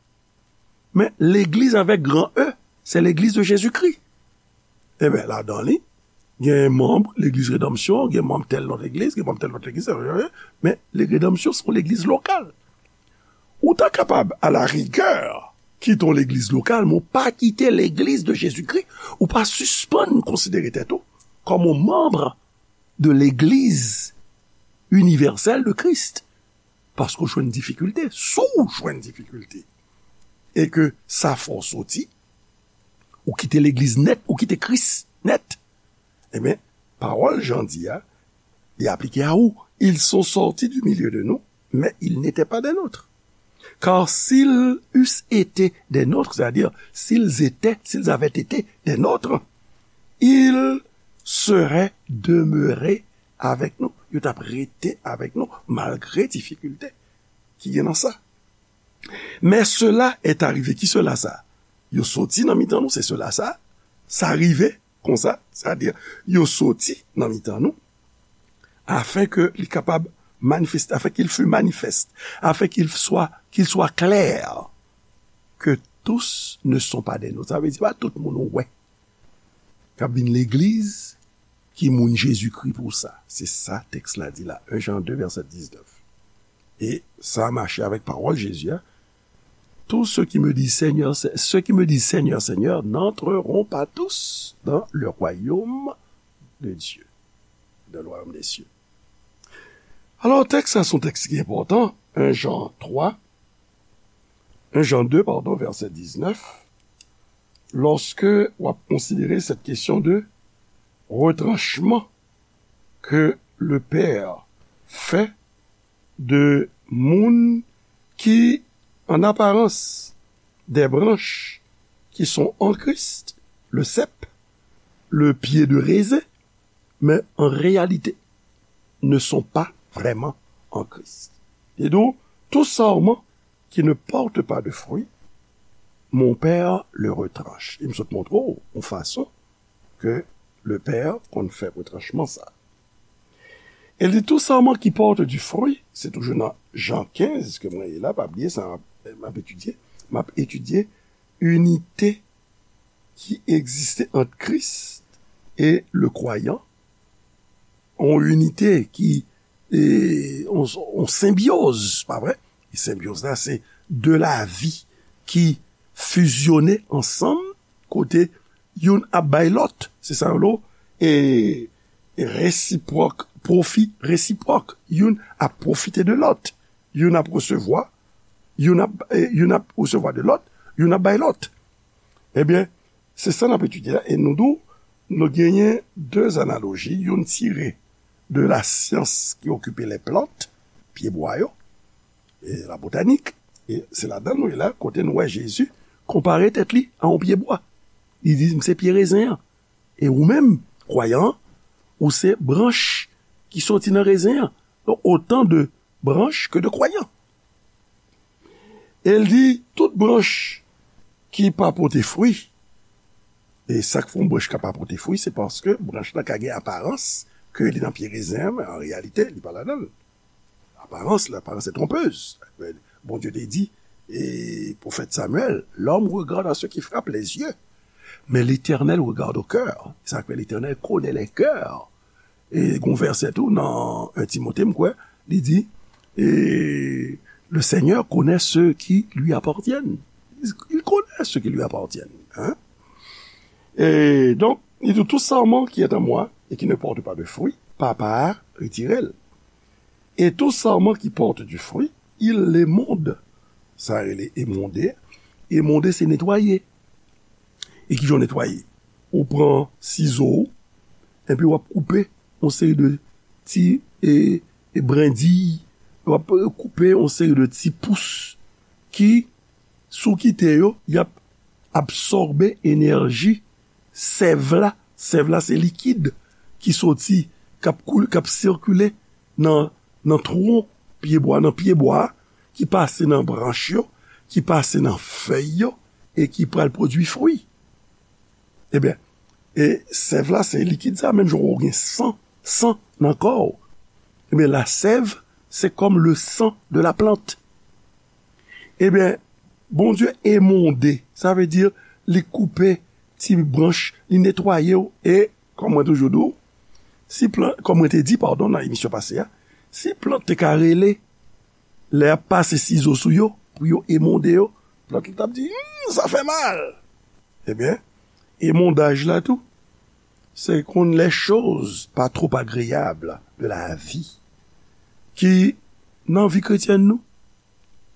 Men legliz avèk gran E, se legliz de Jezikri. Ebyen, ladan li, gen manm legliz Redanmsyon, gen manm tèl lòt legliz, gen manm tèl lòt legliz, men legliz Redanmsyon se yon legliz lokal. Ou ta kapab, à la rigueur, kite yon legliz lokal, men ou pa kite legliz de Jezikri, ou pa sispann konsidere tèt ou kòm yon manm de legliz inivèsèl de Kris. Paske w jwenn difikilte, si w jwenn difikilte, e ke sa fè w soti, ou kite legliz nèt, ou kite Kris nèt, ebyen, pawòl Jan di a, li aplike a ou. Ils sont sortis du milieu de nous, mais ils n'étaient pas des nôtres. Car s'ils eussent été des nôtres, c'est-à-dire, s'ils étaient, s'ils avaient été des nôtres, ils seraient demeurés avec nous. Yo t ap rete avèk nou, malgre difikilte ki gen nan sa. Mais cela est arrivé. Ki sela sa? Yo soti nan mitan nou, se sela sa. Sa rive konsa, sètadi, yo soti nan mitan nou, afin que li kapab manifeste, afin qu'il fût manifeste, afin qu'il soit, qu'il soit clair que tous ne sont pas des nôtres. Sa vle di, pa tout moun ou wè k ap vin legliz ki moun Jezikri pou sa. Se sa tèks la di la, en Jan de, vèsè diznèf. E sa mache avèk pawòl Jezi a, tous ceux qui me disent Seigneur, Se-, ceux qui me disent Seigneur, Seigneur n'entreront pas tous dans le royaume de Dieu, dans le royaume des cieux. Alò, tèks sa se yon tèks ki enpòtan, en Jan twa, en Jan de, pardon, vèsè diznèf, lòske w ap konsidere cette question de retranchement que le Père fait de moun ki, en apparence, des branches qui sont en Christ, le cep, le pied de raisin, mais en réalité ne sont pas vraiment en Christ. Et donc, tout sarment qui ne porte pas de fruit, mon Père le retranche. E m sot montre w yon fason ke le Père konn fè retranchman sa. E li di, tout sarment qui porte du fruit, se toujou nan Jan kenz ke mwen ye la, pa bliye sa, m ap etidye, m ap etidye inite ki egziste ant Kris e le kwayan, yon inite ki, e, yon, yon senbyoz, pa vre? E senbyoz la, se de lavi ki fizyone ansanm, kote youn ap bay lòt, se sa yo rele, e, e resipwòk, pwofi resipwòk. Youn ap pwofite de lòt, youn ap resevwa, youn ap, e, youn ap resevwa de lòt, youn ap bay lòt. Ebyen, se sa n ap etidye la, e nou di w, nou genyen de analoji, youn tire de la science qui occupe les plantes, pyebwa yo, e la botanik. E se ladan nou ye la, kote nou wè Jezi konpare tèt li a yon pyebwa. Li di, "M se pye rezen an. E ou menm, kwayan an, ou se branch ki soti nan rezen an." Donk, otan de branch ke de kwayan. E l di, "Tout branch ki pa pote fwi," e sa k fè yon branch ka pa pote fwi, se paske branch la ka gen aparans ke li nan pye rezen an, men an reyalite, li pa ladan l. Aparans, l'aparence est trompeuse. Bondye te di, e pwofèt Samyèl, "L'homme regarde à ce qui frappe les yeux, mais l'Éternel regarde au cœur." Sa k fè Letènèl konnen lè kè. E gon vèsè tou nan un Timote, m kwè, li di, e, "Le Seigneur connaît ceux qui lui appartiennent." Il connaît ceux qui lui appartiennent. Hein? Et donc, il dit, "Tout sarment qui est en moi et qui ne porte pas de fruit, Papa a retiré l. Et tout sarment qui porte du fruit, il l'émonde." Sa rele émondé. Émondé, se netwaye. E ki jan w netwaye? Ou pran sizo w, epi w ap koupe yon seri de ti, e, e, brendiy, w ap koupe yon seri de ti pous ki, si w kite yo, y ap absòbe enèji sèv la. Sèv la, se likid ki soti, k ap koul-, k ap sikile nan, nan twon pyebwa, nan pyebwa, ki pase nan branch yo, ki pase nan fèy yo, e ki pral pwodui fwi. Ebyen, e sèv la, se likid sa, menm jan w gen san, san nan kò w. Ebyen, la sèv, c'est comme le sang de la plante. Ebyen, Bondye émondé, sa vle di, li koupe ti branch, li netwaye w, e, kòm mwen toujou di w, si plant, kòm mwen te di, padon, nan emisyon pase a, si plant te ka rele, lè y ap pase sizo sou yo, pou yo émondé yo, plant la t ap di, "Hmm, sa fè mal." Ebyen, émondaj la tou, se konn les choses pas trop agréables de la vie ki nan vi kretyèn nou,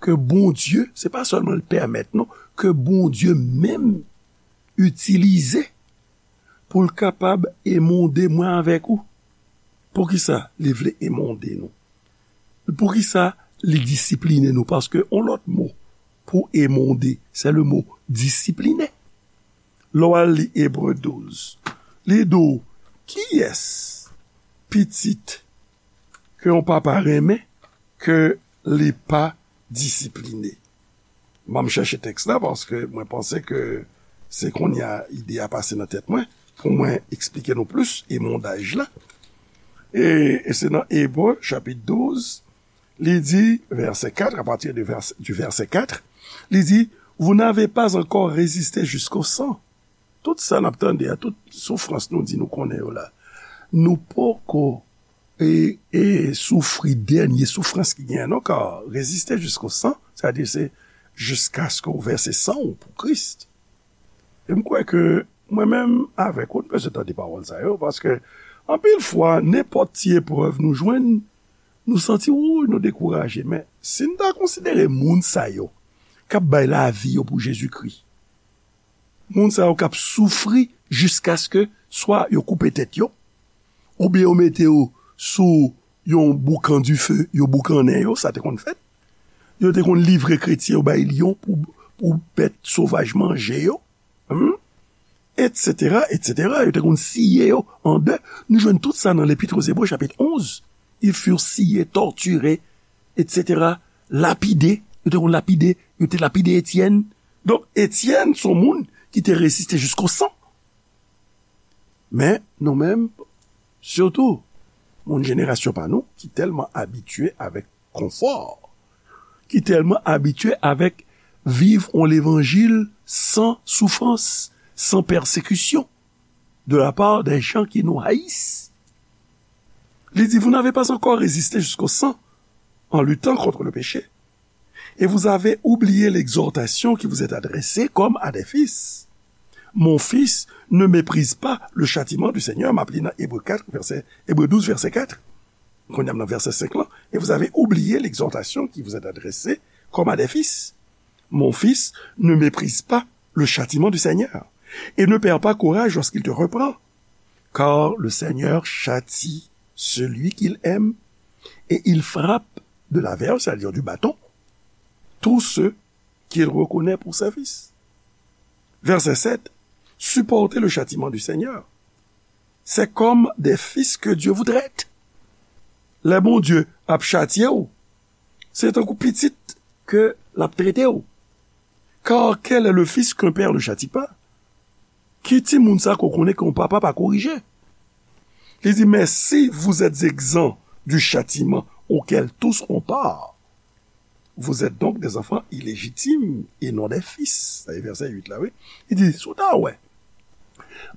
ke Bondye, se pa sèlman l pèmèt, non, ke Bondye menm itilize pou l kapab émondé mwen avèk ou. Poukisa li vle émondé nou? Poukisa li disipline nou? Paske yon lòt mo pou émondé, se le mo discipliner. Lè w al li Ebre douz, li di w, "Kiyès pitit ke yon papa renmen ke li pa disipline?" M ap chèche tèks la paske mwen panse ke se kounye a ide a pase nan tèt mwen pou mwen eksplike nou plis émondaj la. E, e se nan Ebre, chapit douz, li di, vèsè kat, à partir de vers, du verset quatre, li di, "Vous n'avez pas encore résisté jusqu'au sang." Tout sa n ap tande a, tout soufrans nou di nou konnen yo la, nou poko e, e soufri dènye soufrans ki genyen non, kar reziste jisko san, sa di se jiskaske w vèse san w pou Kris. E m kwè ke mwen menm avèk ou, nou bezwen tande pawòl sa yo, paske anpil fwa, nenpòt ti eprèv nou jwenn, nou santi, wouy, nou dekouraje. Men, si n ta konsidere moun sa yo k ap bay lavi yo pou Jezikri, moun sa yo k ap soufri jiskaske swa yo koupe tèt yo, oubyen yo mete yo sou yon boukan dife, yo boukannen yo, sa te konn fèt. Yo te konn livre kretyen yo bay lyon pou, pou bèt sovaj manje yo, hmm? Etsetera, etsetera. Yo te konn siye yo an de. Nou jwenn tout sa nan Lepit o Zebre, chapit onz. Ils furent sciés, torturés, etsetera. Lapidé. Yo te konn lapide. Yo te lapide Etyèn. Donk, Etyèn se yon moun ki te reziste jisko san. Men, nou menm, sitou, moun jenerasyon pa nou, ki tèlman abitye avèk konfò, ki tèlman abitye avèk viv yon levanjil san soufrans, san pèsekisyon, de la part des gens qui nous haïssent. Li di, vous n'avez pas encore résisté jusqu'au sang en luttant contre le péché. Et vous avez oublié l'exhortation qui vous est adressée comme à des fils. Mon fils, ne méprise pas le châtiment du Seigneur. M ap li nan Ebre kat, vèsè, Ebre douz, vèsè kat. Kounye a m nan vèsè senk lan. Et vous avez oublié l'exhortation qui vous est adressée comme à des fils. Mon fils, ne méprise pas le châtiment du Seigneur. Et ne perds pas courage lorsqu'il te reprend. Car le Seigneur châtie celui qu'il aime et il frappe de la verge, c'est-à-dire du bâton, tous ceux qu'il reconnaît pour ses fils. Verset sept, supportez le châtiment du Seigneur. C'est comme des fils que Dieu vous traite. Lè Bondye ap chatye w, se tankou pitit ke l ap trete w. Car quel est le fils qu'un père ne châtie pas? Ki timoun sa ke w konnen ke yon papa pa korije? Li di, mais si vous êtes exempts du châtiment auquel tous ont part, vous êtes donc des enfants illégitimes et non des fils. Sa se vèsè uit la, wi. Li di, si w ta wè,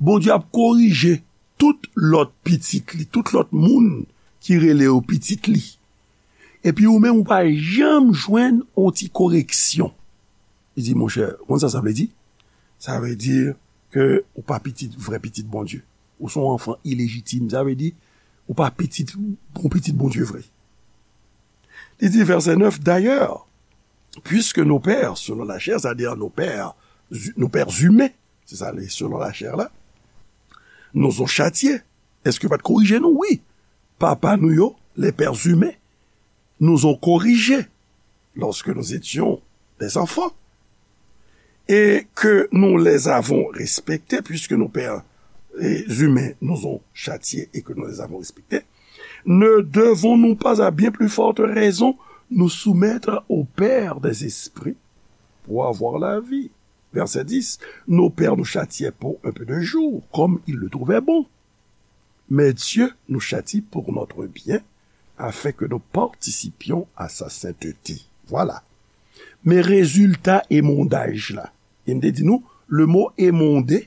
Bondye ap korije tout lòt pitit li, tout lòt moun ki rele yo pitit li. Epi ou menm, ou pa janm jwenn yon ti koreksyon. Li di, monchè, konn sa sa vle di? Sa vle di ke ou pa pitit, vrè pitit Bondye. Ou se yon anfan ilejitim. Sa vle di, ou pa pitit, bon pitit Bondye vre. Li di, vèsè nèf, d'ailleurs, puisque nos pères, selon la chair, c'est-à-dire nos pères, nos pères humains, se sa, selon la chair la, nous ont châtiés. Èske pa t korije nou? Wi. Papa nou yo, les pères humains, nous ont corrigés lorsque nous étions des enfants, et que nous les avons respectés, puisque nos pères, eh, humains nous ont châtiés et que nous les avons respectés, ne devons-nous pas à bien plus forte raison nous soumettre au Père des esprits pour avoir la vie? Verset dix, nos pères nous châtiaient pour un peu de jours, comme ils le trouvaient bon. Mais Dieu nous châtie pour notre bien, afin que nous participions à sa sainteté. Voilà. Men rezilta emondaj la. E m te di nou, le mot émondé,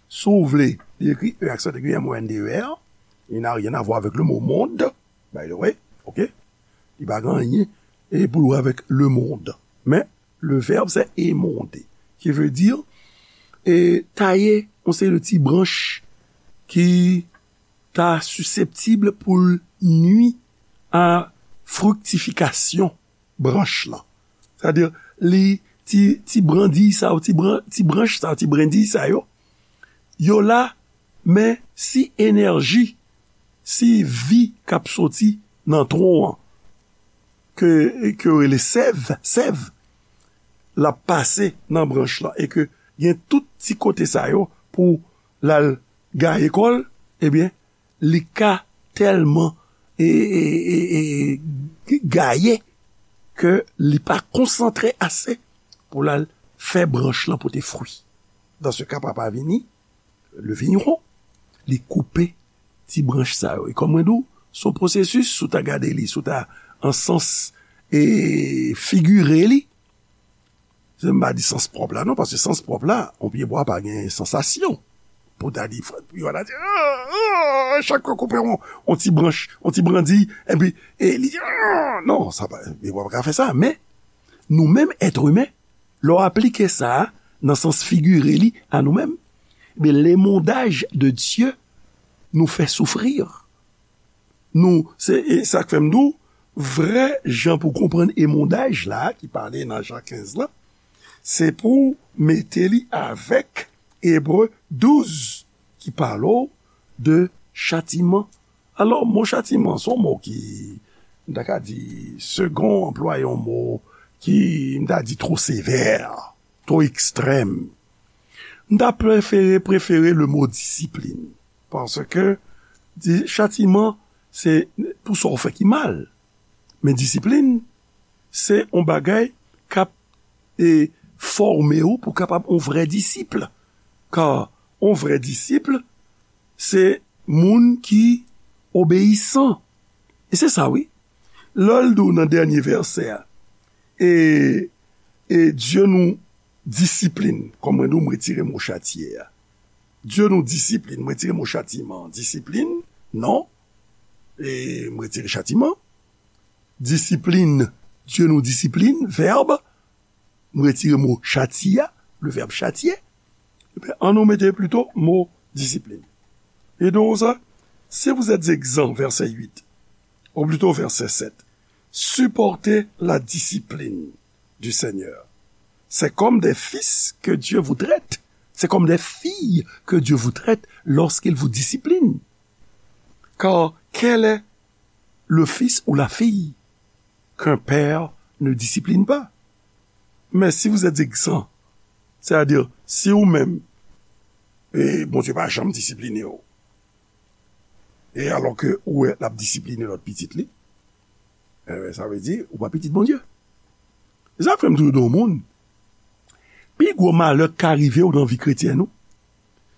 si w vle, li ekri E aksan aigu M O N D E R. Il n'a rien à voir avec le mot monde, by the way. OK? Li pa gen anyen e pou l wè avèk le monde. Men, le verbe, c'est émonder, qui veut dire, e, taye yon seri de ti branch ki ta siseptib pou l nui a friktifikasyon branch lan. Sètadi, li, ti, ti brandiy sa yo, ti bran-, ti branch sa yo, ti brandiy sa yo, yo la, men si enèji, si vi k ap soti nan twon an, ke, ke yo rele sèv, sèv, l ap pase nan branch lan, e ke gen tout ti kote sa yo pou l al gaye kò l, ebyen, li ka tèlman, e, e, e, e, gaye ke li pa konsantre ase pou l al fè branch lan pote fwi. Dans ce cas, papa vini, le vigneron, li koupe ti branch sa yo. E kòm mwen di w, se yon pwosesis, si w ta gade li, si w ta an sans, e, figire li, se m pa di sans pwòp la, non, paske sans pwòp la, yon pyebwa pa gen sansasyon. Pou ta di, frè, pou yo ta di, ah, ah, chak yo koupe yon, yon ti branch, yon ti brandiy, epi, e li di, ah, non, sa pa, pyebwa pa ka fè sa. Men, nou menm, èt imen, lè w aplike sa a nan sans figire li a nou menm, men, lemondaj de Dye nou fè soufri. Nou, se, e sa k fè m di w, vrè jan pou konprann emondaj la, ki pale nan Jan kenz lan, se pou w mete li avèk Ebre douz, ki pale w de chatiman. Alò, mo chatiman, se yon mo ki, m ta ka di, Segond anplwaye yon mo ki, m ta di, twò sevè, twò ekstrèm. M ta prefere, prefere le mo disiplin. Paske, di, chatiman, se pou sa w fè ki mal. Men disiplin, se yon bagay k ap, e, fòme w pou w kapab yon vrè disip. Ka yon vrè disip, se moun ki obeyisan. E se sa, wi. Lè l di w nan dènye vèsè a, e, e Dye nou disiplin, kòm mwen di w, m retire mo chatye a. Dye nou disiplin, m retire mo chatiman. Disiplin, non. E m retire chatiman. Disiplin, Dye nou disiplin, vèb. M retire mo chatye a, le verbe châtier. Ebyen, ann nou mete plito mo disiplin. E donk sa, si vous êtes exempts, verset huit, ou plito verset sept, supportez la discipline du Seigneur. C'est comme des fils que Dieu vous traite. C'est comme des filles que Dieu vous traite lorsqu'il vous discipline. Car quel est le fils ou la fille qu'un père ne discipline pas. Mais si vous êtes exempt, c'est-à-dire, si ou menm, e Bondye pa janm disipline w, e alò ke ou wè l ap disipline lòt pitit li, e sa vle di ou pa pitit Bondye. E sa fè m toujou di yon moun, pi gwo malè k ka rive w nan vi kretyèn ou,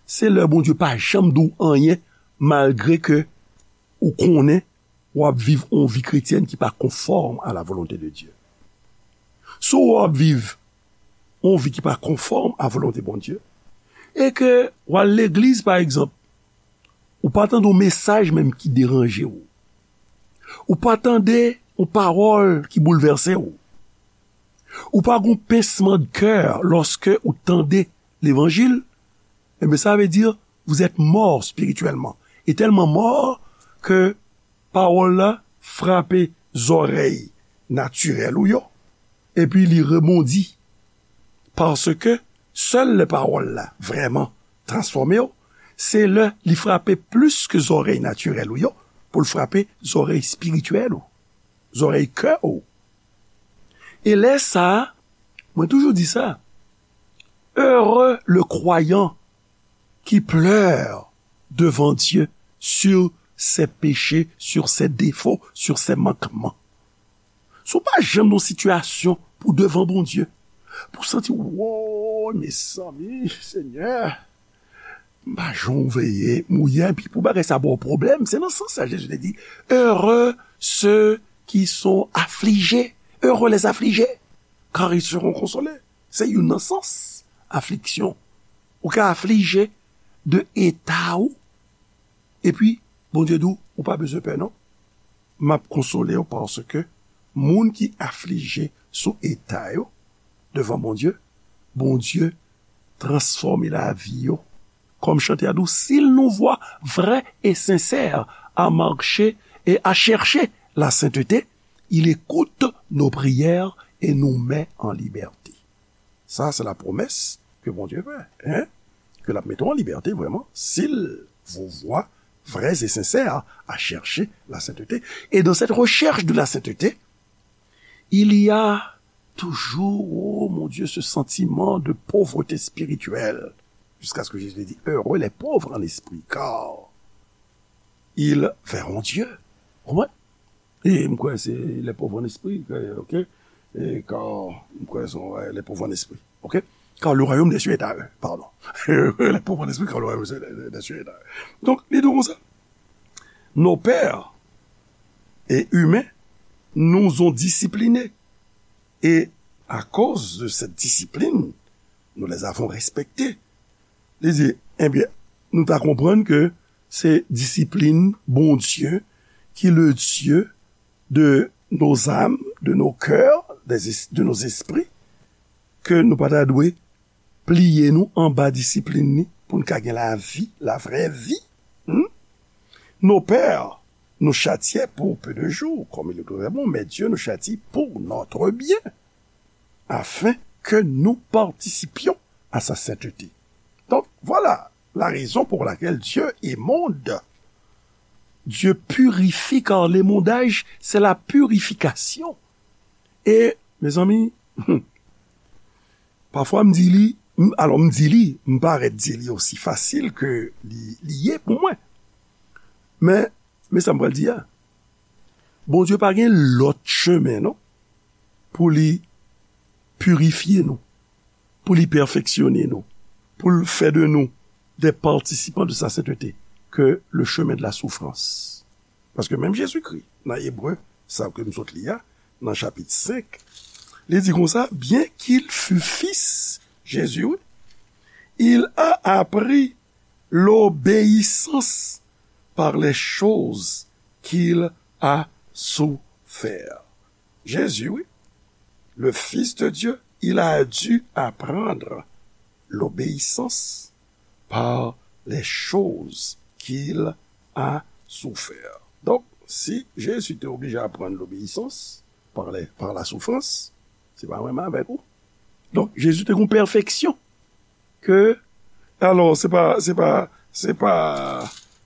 se lè Bondye pa janm di w anyen, malgre ke ou konnen w ap viv yon vi kretyèn ki pa konfòm a la volonte de Dye. Si w ap viv yon vi ki pa konfòm a volonte Bondye, e ke w al legliz, pa egzanp, ou pa tande yon mesaj menm ki deranje w, ou pa tande yon pawòl ki boulvèse w, ou pa gen yon pinsman de kè lòske ou tande levanjil, ebyen, sa vle di, vous êtes mort spirituellement. E tèlman mò ke pawòl la frape zòrèy natirèl ou yo, epi li rebondi. Paske sèl lè pawòl la vrèman transfòme w, se lè li frape plis ke zòrèy natirèl ou yo, pou l frape zòrèy espirityèl ou, zòrèy kè ou. E lè sa a, mwen toujou di sa, heureux le croyant qui pleure devant Dieu sur ses péchés, sur ses défauts, sur ses manquements. Si w pa janm nan yon sitiyasyon pou devan Bondye, pou w santi, woy, mezanmi, Senyè, m pa janm veye, m ye, epi pou bagay sa ba w pwoblèm, se nan sans sa Jezi te di, heureux ceux qui sont affligés, heureux les affligés, car ils seront consolés. Se youn nan sans afliksyon. Ou ka aflije de eta ou, epi Bondye di w, ou pa bezwen pè non. M ap konsole w paske moun ki aflije sou eta yo devan Bondye, Bondye transfòme lavi yo. Kòm chante a di w, s'il nous voit vrais et sincères à marcher et à chercher la sainteté, il écoute nos prières et nous met en liberté. Ça, c'est la promesse que Bondye fè, hein? Ke l ap mete w an libète vrèman, s'il vous voit vrais et sincères à chercher la sainteté. Et dans cette recherche de la sainteté, il y a toujours, oh mon Dieu, ce sentiment de pauvreté spirituelle. Jusqu'à ce que Jésus dit, heureux les pauvres en esprit, car ils verront Dieu. Ou konprann? E m kwè se les pauvres en esprit, ok? E car, m kwè se, ouais, les pauvres en esprit, ok? Car le royaume des cieux est à eux, pardon. Les pauvres en esprit, car le royaume des cieux est à eux. Donk, li di konsa, nos pères et humains nous ont disciplinés. Et à cause de cette discipline, nous les avons respectés. Li di, ebyen, nou ta konprann ke se disiplin Bondye ki le Dieu de nos âmes, de nos cœurs, des es- de nos esprits, ke nou pa ta dwe pliye nou anba disiplin li pou n ka gen lavi, la vraie vie. Hmm? Nos pères nous châtiaient pour peu de jours, comme il est très bon, mais Dieu nous châtie pour notre bien, afin que nous participions à sa sainteté. Donc, voilà la raison pour laquelle Dieu émonde. Dieu purifie, car l'émondage, c'est la purification. E, mezanmi, pafwa m di li, m- alò m di li, m parèt di li osi fasil ke li, li ye pou mwen. Men, men sa m pral di a, Bondye pa gen lòt chemen, non, pou li pirifye nou, pou li pèfeksyone nou, pou l fè de nou des participants de sa sainteté, que le chemin de la souffrance. Paske menm Jezikri, nan Ebre, sa ke m sot li a, nan chapit senk, li di konsa, bien qu'il fût fils, Jésus, oui, il a appris l'obéissance par les choses qu'il a souffert. Jésus, oui, le Fils de Dieu, il a dû apprendre l'obéissance par les choses qu'il a souffert. Donk, si Jezi te oblije aprann lobeyisans par les, par la souffrance, se pa menm avèk ou. Donk, Jezi te gen yon pèfeksyon ke, alò, se pa, se pa, se pa,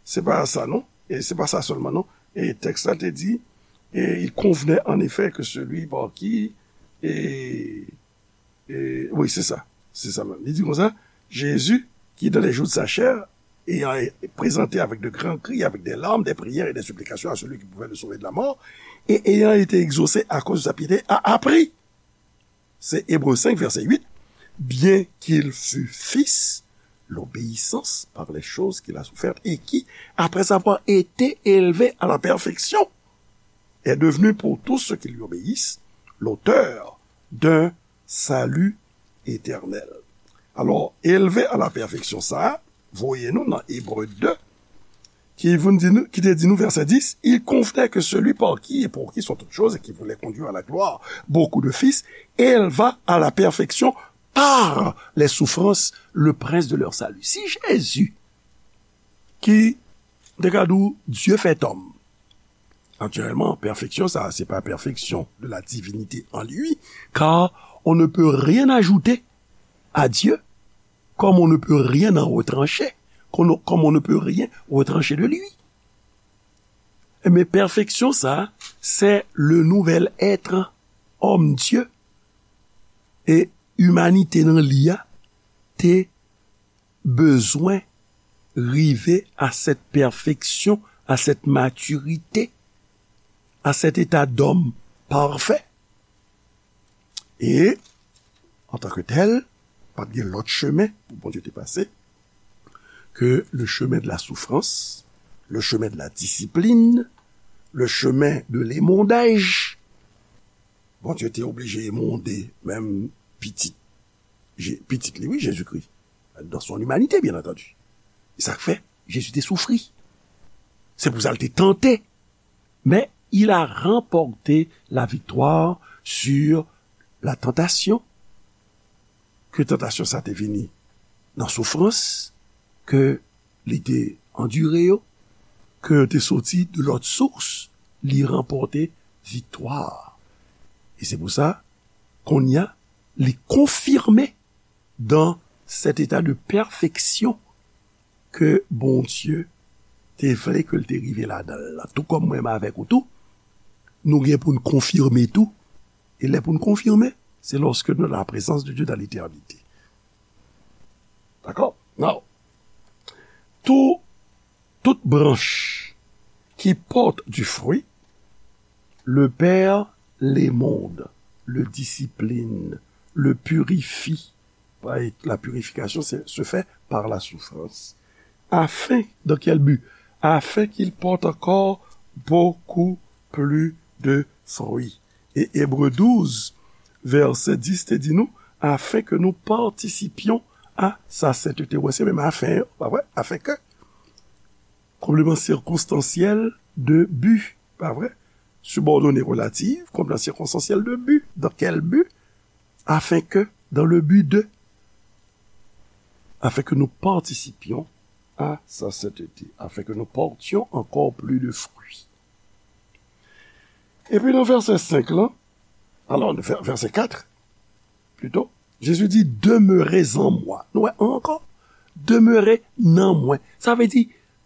se pa sa, non. E se pa sa sèlman, non. E tèks la te di, Et il convenait en effet que celui par qui, et, et, oui, c'est ça, c'est ça même. Il dit comme ça, Jésus, qui dans les jours de sa chair, ayant été présenté avec de grands cris, avec des larmes, des prières et des supplications à celui qui pouvait le sauver de la mort, et ayant été exaucé à cause de sa piété, a appris. C'est Hébreux cinq, verset huit. Bien qu'il fût fils, l'obéissance par les choses qu'il a souffertes et qui, après avoir été élevé à la perfection, est devenu pour tous ceux qui lui obéissent l'auteur d'un salut éternel. Alò, elve a la pèfeksyon sa a, voye nou nan Ebre de, ki vin di nou, ki te di nou, vèsè dis, il convenait que celui par qui et pour qui sont toutes choses et qui voulait conduire à la gloire beaucoup de fils, élevât à la perfection par les souffrances le prince de leur salut. Si Jezi, ki te ka di w Dieu fait homme, naturellement, perfection, ça, c'est pas perfection de la divinité en lui, car on ne peut rien ajouter à Dieu, comme on ne peut rien en retrancher, comme on, comme on ne peut rien retrancher de lui. Men pèfeksyon sa, c'est le nouvel être homme Dieu. E imanite nan li a te bezwen rive à cette perfection, à cette maturité, à cet état d'homme parfait. E, antanke tèl, pa t gen lòt chemen pou Bondye te pase ke le chemin de la souffrance, le chemin de la discipline, le chemin de l'émondage. Bondye te oblije emonde menm pitit, Je-, pitit li, wi, Jezikri, dans son humanité, bien entendu. E sa k fè Jezi te soufri. Se pou sa l te tante. Mais il a remporté la victoire sur la tentation. Ke tantasyon sa te vini nan soufrans ke li te andire yo, ke yo te soti de lòt sous, li ranpòte viktwa. E se pou sa, kounye a, li konfime dans cet état de perfection ke Bondye te vle ke l te rive ladan l la. Tou kòm mwen menm avèk ou tou, nou gen pou n konfime tou. E lè pou n konfime, se lorsque nous dans la présence de Dieu dans l'éternité. Dakò? Now, tout, toute branche qui porte du fruit, le Père l'émonde, le discipline, le purifie. La purification se, se fait par la souffrance. Afin, dans quel but? Afin qu'il porte encore beaucoup plus de fruits. E Ebre douz, vèsè dis te di nou, afin que nous participions à sa sainteté. Wè, se menm afin, pa vre? Afin que. Complément circonstanciel de but, pa vre? Subordonnée relative, complément circonstanciel de but. Dans quel but? Afin que, dans le but de, afin que nous participions à sa sainteté, afin que nous portions encore plus de fruits. Epi nan vèsè senk lan, alò, vè-, vèsè kat, plito, Jezi di, demeurez en moi. Nou wè ankò, demeure nan mwen. Sa vle di,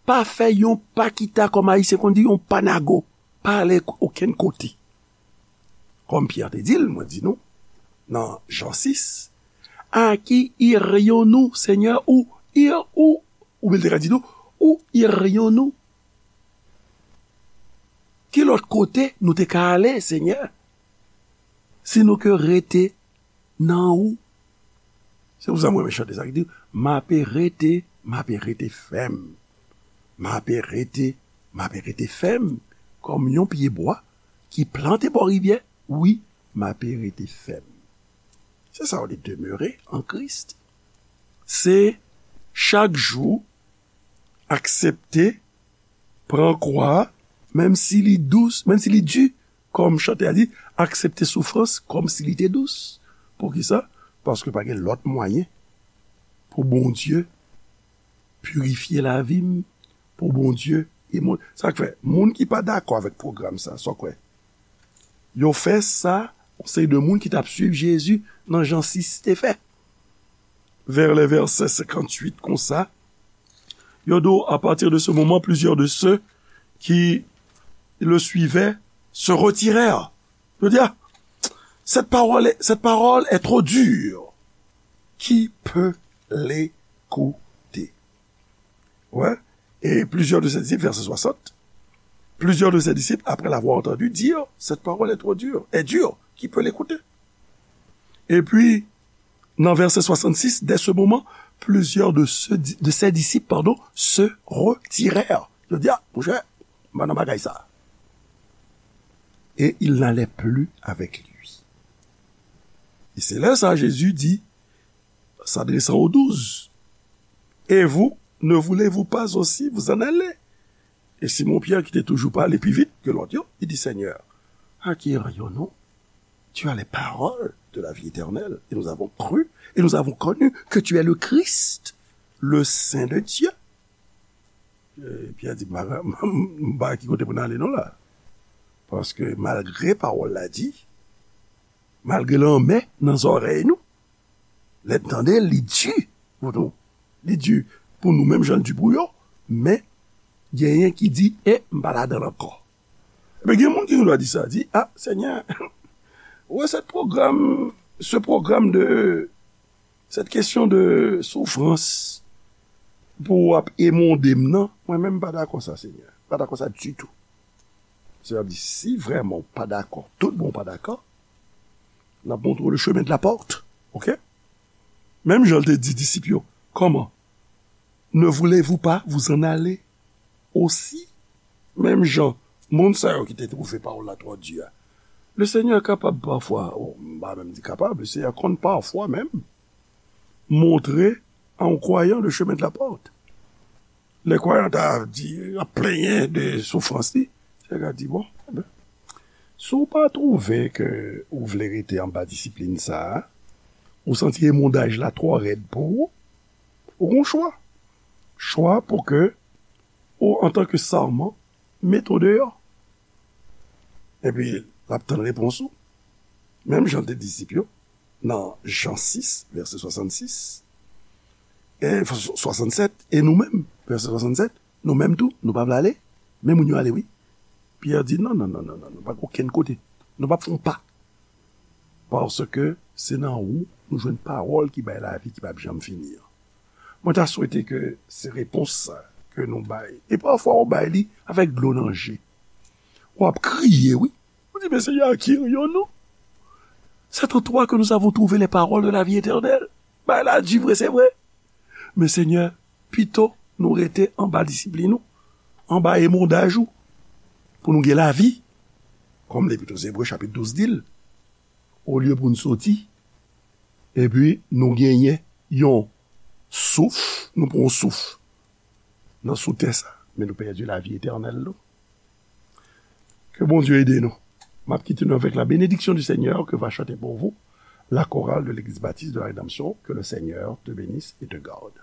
pa fè yon pa kita, kòm Ayisyen konn di, yon pa nago. Pa ale okenn kote. Kòm Pyè te di l, mwen di nou, nan Jan sis, à qui irions-nous, Seigneur, où ir-, où, oubyen l te ka di nou, où irions-nous? Ki lòt kote nou te ka ale, Senyè? Si nou ke rete nan ou. Se pou sa mwen renmen chante sa ki di, m ape rete, m ape rete fèm. M ape rete, m ape rete fèm kòm yon pyebwa ki plante bò rivyè. Wi, m ape rete fèm. Se sa w di demeure en Christ. Se chak jou aksepte pran kwa, menm si li dous, menm si li di, kòm chantè a di, aksepte soufrans kòm si li te dous. Poukisa? Paske pa gen lòt mwayen pou Bondye pirifye lavi m, pou Bondye e moun. Sa k fè, moun ki pa dakò avèk pwogram sa, sa w kwè? Yo fè sa, yon seri de moun ki t ap swiv Jezi nan Jan sis te fè. Vers les versets cinquante-huit konsa, yo di w, à partir de ce moment, plusieurs de ceux qui le suivaient se retirèrent. Je veux dire, cette parole est, cette parole est trop dure. Qui peut l'écouter? Ouais. Et plusieurs de ses disciples, verset soixante, plusieurs de ses disciples, après l'avoir entendu dire, cette parole est trop dure, est dure, qui peut l'écouter? Et puis, dans verset soixante-six, dès ce moment, plusieurs de, ceux, de ses disciples, pardon, se retirèrent. Yo di, ah, monchè, m pa nan bagay sa. Et ils n'allaient plus avec lui. Et c'est là ça, Jésus dit, s'adressant aux douze, et vous, ne voulez-vous pas aussi vous en aller? Et Simon Pierre, qui était toujours pas allé plus vite que l'autre, il dit, Seigneur, à qui irions-nous? Tu as les paroles de la vie éternelle, et nous avons cru, et nous avons connu que tu es le Christ, le Saint de Dieu. E, Pyè di, m pa, m pa ki kote pou n ale non la. Paske malgre pawòl la di, malgre l anmè nan zòrèy nou, lè n tande l, li di pou nou. Li di pou nou menm jan l di pou yo, men genyen ki di, e m pa ladan l ankò. Ebyen, gen moun ki gen dwa di sa, di, a, Senyè, ou wè sèt pwogram, ce programme de, cette question de souffrance pou w ap emonde m nan, mwen menm m pa dakò sa, Senyè. M pa dakò sa ditou. Senyè ap di, si vrèman w pa dakò, tout bon w pa dakò, l ap montre w le chemin de la porte, oke? Menm jan l te di disip yo, comment? Ne voulez-vous pas vous en aller aussi? Menm jan, moun sa yo ki te twouve pawòl la twò di a. Le Senyè kapab pafwa, oh, m pa menm di kapab, le Senyè konn pafwa menm montre a yon kwayan le chemen de la pòt. Lè kwayan ta di, ap plenyen de soufrans li, Senyè ka di, bon, enben, si w pa twouve ke ou vle rete anba disiplin sa a, ou santi emondaj la twò rèd pou ou, ou gon chwa. Chwa pou ke ou, antanke sèman, mete w deyò. Epi, l ap tann repons ou. Menm jan l te disip yo, nan Jan sis, vèsè swasannsis, e, swasannsèt, e nou menm, vèsè swasannsèt, nou menm tou, nou pa vle ale? Men moun yo ale, wi. Pyè di, non, non, non, non, non, nou pa gen okenn kote. Nou p ap fè yon pa. Paske se nan ou nou jwenn pawòl ki bay lavi ki p ap janm fini an. Mwen ta swete ke se repons sa ke nou bay. E pafwa ou bay li avèk dlo nan je. W ap kriye, wi. Ou di, men Senyè, à qui irions-nous? C'est en toi que nous avons trouvé les paroles de la vie éternelle. Bay la di vre, se vre. Men Senyè, pito nou rete anba disiplin ou, anba emondaj ou, pou nou gen lavi. Kòm Lepit aux Hébreux chapit douz di l, olye pou n soti, epi nou genyen yon souf, nou pran yon souf nan sou tè sa, men nou pèdi lavi etènèl nou. Ke Bondye ede nou. M ap kite nou avec la bénédiction du Seigneur que va chanter pour vous la chorale de l'église baptiste de la Rédemption. Que le Seigneur te bénisse et te garde.